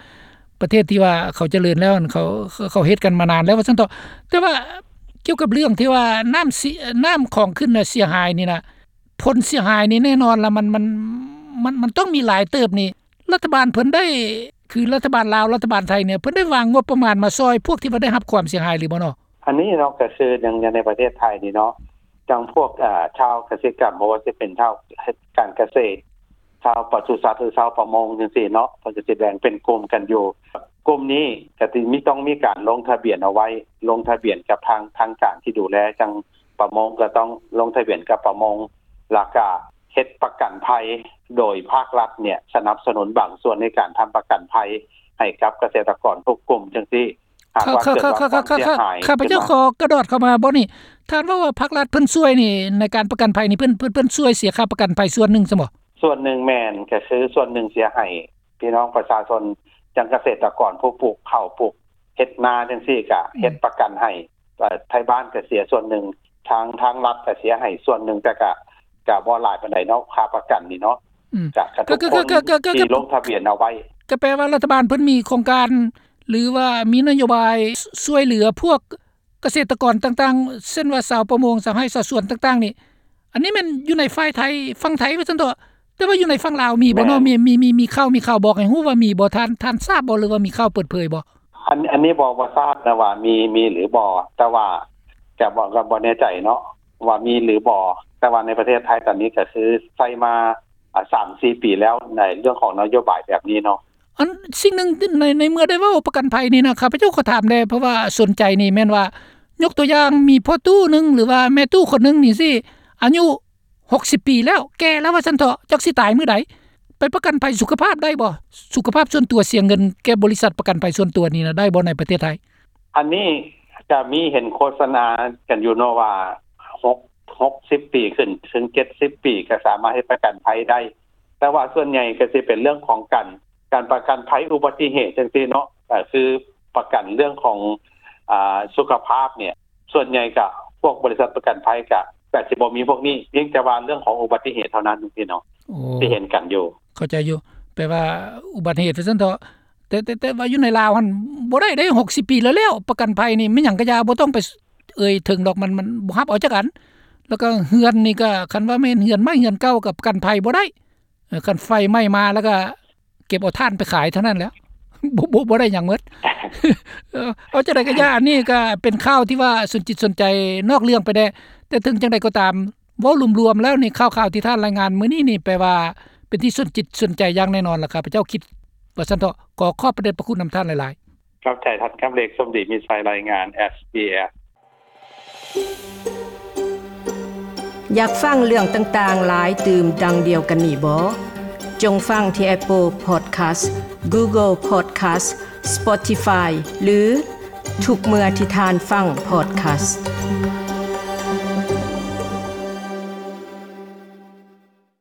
ປະເທດທີ່ວ່າເຂົາຈະເລີນແລ້ວ ເຂົາ ເຂົາເຮັດກັນມານານແລ້ວວ່າຊັ້ນເຖາະ. ແຕ່ວ່າກ່ຽວກັບເລື່ອງທີ່ວ່ານ້ຳເສຍ ນ້ຳຂອງຂຶ້ນນະເສຍຫາຍນີ້ນະ ຜົນເສຍຫາຍນີ້ແນ່ນອນລະ ມັນ ມັນ ມັນ ມັນຕ້ອງມີຫຼາຍເຕີບນີ້ ລັດຖະບານເພິ່ນໄດ້ ຄືລັດຖະບານລາວ ລັດຖະບານໄທນີ້ ເພິ່ນໄດ້ວາງງົບປະມານມາຊ່ອຍພວກທີ່ວ່າໄດ້ຮັບຄວາມເສຍຫາຍຫຼືບໍ່ເນາະ? ອັນນີ້ເນາະ ກໍຄືຢ່າງ ຢ່າງໃນປະເທດໄທນີ້ເນາະ ຈັ່ງພວກ ເອີ ຊາວກະສິກຳ ບໍ່ວ່າຊິເປັນຊາວເຮັດການກະເສດ ຊາວປະສຸສັດ ຫຼື ຊາວປະມົງຈັ່ງຊີ້ເນາະ ເພິ່ນກໍຊິແບ່ງເປັນກຸ່ມກັນຢູ່ ກຸ່ມນີ້ກໍຊິມີ ຕ້ອງມີການລົງທະບຽນເອົາໄວ້ ລົງທະບຽນກັບທາງ ທາງການທີ່ດູແລ ຈັ່ງປະມົງກໍຕ້ອງລົງທະບຽນກັບປະມົງ ແລ້ວກະເຮັດປະກັນໄພ ໂດຍພາກລັດເນຍສະໜັບສະໜູນບາງສ່ວນໃນການທຳປະກັນໄພໃຫ້ກັບກະເສດຕະກອນທຸກກຸ່ມຈັ່ງຊີ້. ຫາກວ່າເກີດວ່າຄວາມເສຍຫາຍ ຂ້າພະເຈົ້າຂໍກະດອດເຂົ້າມາບ່ອນນີ້ ທ່ານເວົ້າວ່າພາກລັດເພິ່ນຊ່ວຍນີ້ ໃນການປະກັນໄພນີ້ ເພິ່ນ ເພິ່ນ ເພິ່ນຊ່ວຍເສຍຄ່າປະກັນໄພສ່ວນໜຶ່ງຊັ້ນບໍ່? ສ່ວນໜຶ່ງແມ່ນ ກໍຄືສ່ວນໜຶ່ງເສຍໃຫ້ພີ່ນ້ອງປະຊາຊົນ ຈັ່ງກະເສດຕະກອນຜູ້ປູກເຂົ້າ ປູກເຮັດນາຈັ່ງຊີ້ ກະເຮັດປະກັນໃຫ້ ເອີ ໄທບ້ານກະເສຍສ່ວນໜຶ່ງ ທາງ ທາງລັດກະເສຍໃຫ້ສ່ວນໜຶ່ງ ແຕ່ກະ ກະບໍ່ຫຼາຍປານໃດເນາະ ຄ່າປະກັນນີ້ເນາະ ອືມ ກະ ກະ ກະ ກະ ກະ ກະ ທີ່ລົງທະບຽນເອົາໄວ້ ກະແປວ່າລັດຖະບານເພິ່ນມີໂຄງການ ຫຼືວ່າມີນະໂຍບາຍ ຊ- ຊ່ວຍເຫຼືອພວກກະເສດຕະກອນຕ່າງໆ ເຊັ່ນວ່າຊາວປະມົງ ຊາວໄຮ່ຊາວສວນຕ່າງໆນີ້ ອັນນີ້ແມ່ນຢູ່ໃນຝ່າຍໄທ ຝັ່ງໄທວ່າຊັ້ນເຖາະ ແຕ່ວ່າຢູ່ໃນຝັ່ງລາວມີບໍ່ເນາະ? ແມ່ນ ມີ ມີ ມີ ມີຂ່າວ ມີຂ່າວບອກໃຫ້ຮູ້ວ່າມີບໍ່? ທ່ານ ທ່ານຊາບບໍ່ ຫຼືວ່າມີຂ່າວເປີດເຜີຍບໍ່? ອັນ ອັນນີ້ບໍ່ ບໍ່ຊາບນະວ່າມີ ມີຫຼືບໍ່ ແຕ່ວ່າກະບໍ່ ກະບໍ່ແນ່ໃຈເນາະວ່າມີຫຼືບໍ່ ແຕ່ວ່າໃນປະເທດໄທຕອນນີ້ກະຄືໃຊ້ມາ ອາ ສາມສີ່ປີແລ້ວ ໃນເລື່ອງຂອງນະໂຍບາຍແບບນີ້ເນາະ. ອັນສິ່ງໜຶ່ງ ໃນ ໃນເມື່ອໄດ້ເວົ້າປະກັນໄພນີ້ນະ ຂ້າພະເຈົ້າຂໍຖາມແດ່ ເພາະວ່າສົນໃຈນີ້ແມ່ນວ່າ ຍົກຕົວຢ່າງມີພໍ່ຕູ້ໜຶ່ງ ຫຼືວ່າແມ່ຕູ້ຄົນໜຶ່ງນີ້ຊິ ອາຍຸຫົກສິບປີແລ້ວ ແກ່ແລ້ວວ່າຊັ້ນເຖາະ ຈັກຊິຕາຍມື້ໃດ ໄປປະກັນໄພສຸຂະພາບໄດ້ບໍ່? ສຸຂະພາບສ່ວນຕົວ ເສຍເງິນແກ່ບໍລິສັດປະກັນໄພສ່ວນຕົວນີ້ນະ ໄດ້ບໍ່ໃນປະເທດໄທ? ອັນນີ້ກະມີເຫັນໂຄສະນາກັນຢູ່ເນາະວ່າ ຫົກ ຫົກສິບປີຂຶ້ນເຖິງເຈັດສິບປີ ກະສາມາດເຮັດປະກັນໄພໄດ້ ແຕ່ວ່າສ່ວນໃຫຍ່ກະຊິເປັນເລື່ອງຂອງການ ການປະກັນໄພອຸບັດຕິເຫດຈັ່ງຊີ້ເນາະ ກະຄືປະກັນເລື່ອງຂອງ ອາ ສຸຂະພາບເນຍ ສ່ວນໃຫຍ່ກະພວກບໍລິສັດປະກັນໄພກະ ກະຊິບໍ່ມີພວກນີ້ ພຽງແຕ່ວ່າເລື່ອງຂອງອຸບັດຕິເຫດເທົ່ານັ້ນຈັ່ງຊີ້ເນາະ ໂອ້ ທີ່ເຫັນກັນຢູ່. ເຂົ້າໃຈຢູ່ ແປວ່າອຸບັດຕິເຫດວ່າຊັ້ນເຖາະ ແຕ່ ແຕ່ ແຕ່ວ່າຢູ່ໃນລາວຫັ້ນບໍ່ໄດ້ເດ້ ຫົກສິບປີແລ້ວ ແລ້ວປະກັນໄພນີ້ແມ່ນຫຍັງກະຢ່າ ບໍ່ຕ້ອງໄປເອີ່ຍເຖິງດອກ ມັນ ມັນບໍ່ຮັບເອົາຈັກອັນ ແລ້ວກະເຮືອນນີ້ກະ ຄັນວ່າແມ່ນເຮືອນໃໝ່ເຮືອນເກົ່າກະປະກັນໄພບໍ່ໄດ້ ເອີ ຄັນໄຟໄໝ້ມາແລ້ວກະເກັບເອົາຖ່ານໄປຂາຍເທົ່ານັ້ນແຫຼະ ບໍ່ ບໍ່ ບໍ່ໄດ້ຫຍັງໝົດ ເອີ ເອົາຈັ່ງໃດກະຢ່າ ອັນນີ້ກະເປັນຂ່າວທີ່ວ່າສົນຈິດສົນໃຈ ນອກເລື່ອງໄປແດ່ ແຕ່ເຖິງຈັ່ງໃດກໍຕາມ ເວົ້າລວມໆແລ້ວນີ້ ຂ່າວໆທີ່ທ່ານລາຍງານມື້ນີ້ນີ້ ແປວ່າເປັນທີ່ສົນຈິດສົນໃຈຢ່າງແນ່ນອນລະ ຂ້າພະເຈົ້າຄິດວ່າຊັ້ນເຖາະ ຂໍຂອບພະເດດພະຄຸນນຳທ່ານຫຼາຍໆ. ຂອບໃຈທ່ານ ກຳເລກ ສົມດີມີໄຊ ລາຍງານ ເອສບີເອສ. ຢາກຟັງເລື່ອງຕ່າງໆຫຼາຍຕື່ມດັ່ງດຽວກັນນີ້ບໍ? ຈົ່ງຟັງທີ່ Apple Podcast, Google Podcast, Spotify ຫຼື ທຸກເມື່ອທີ່ທ່ານຟັງ podcast.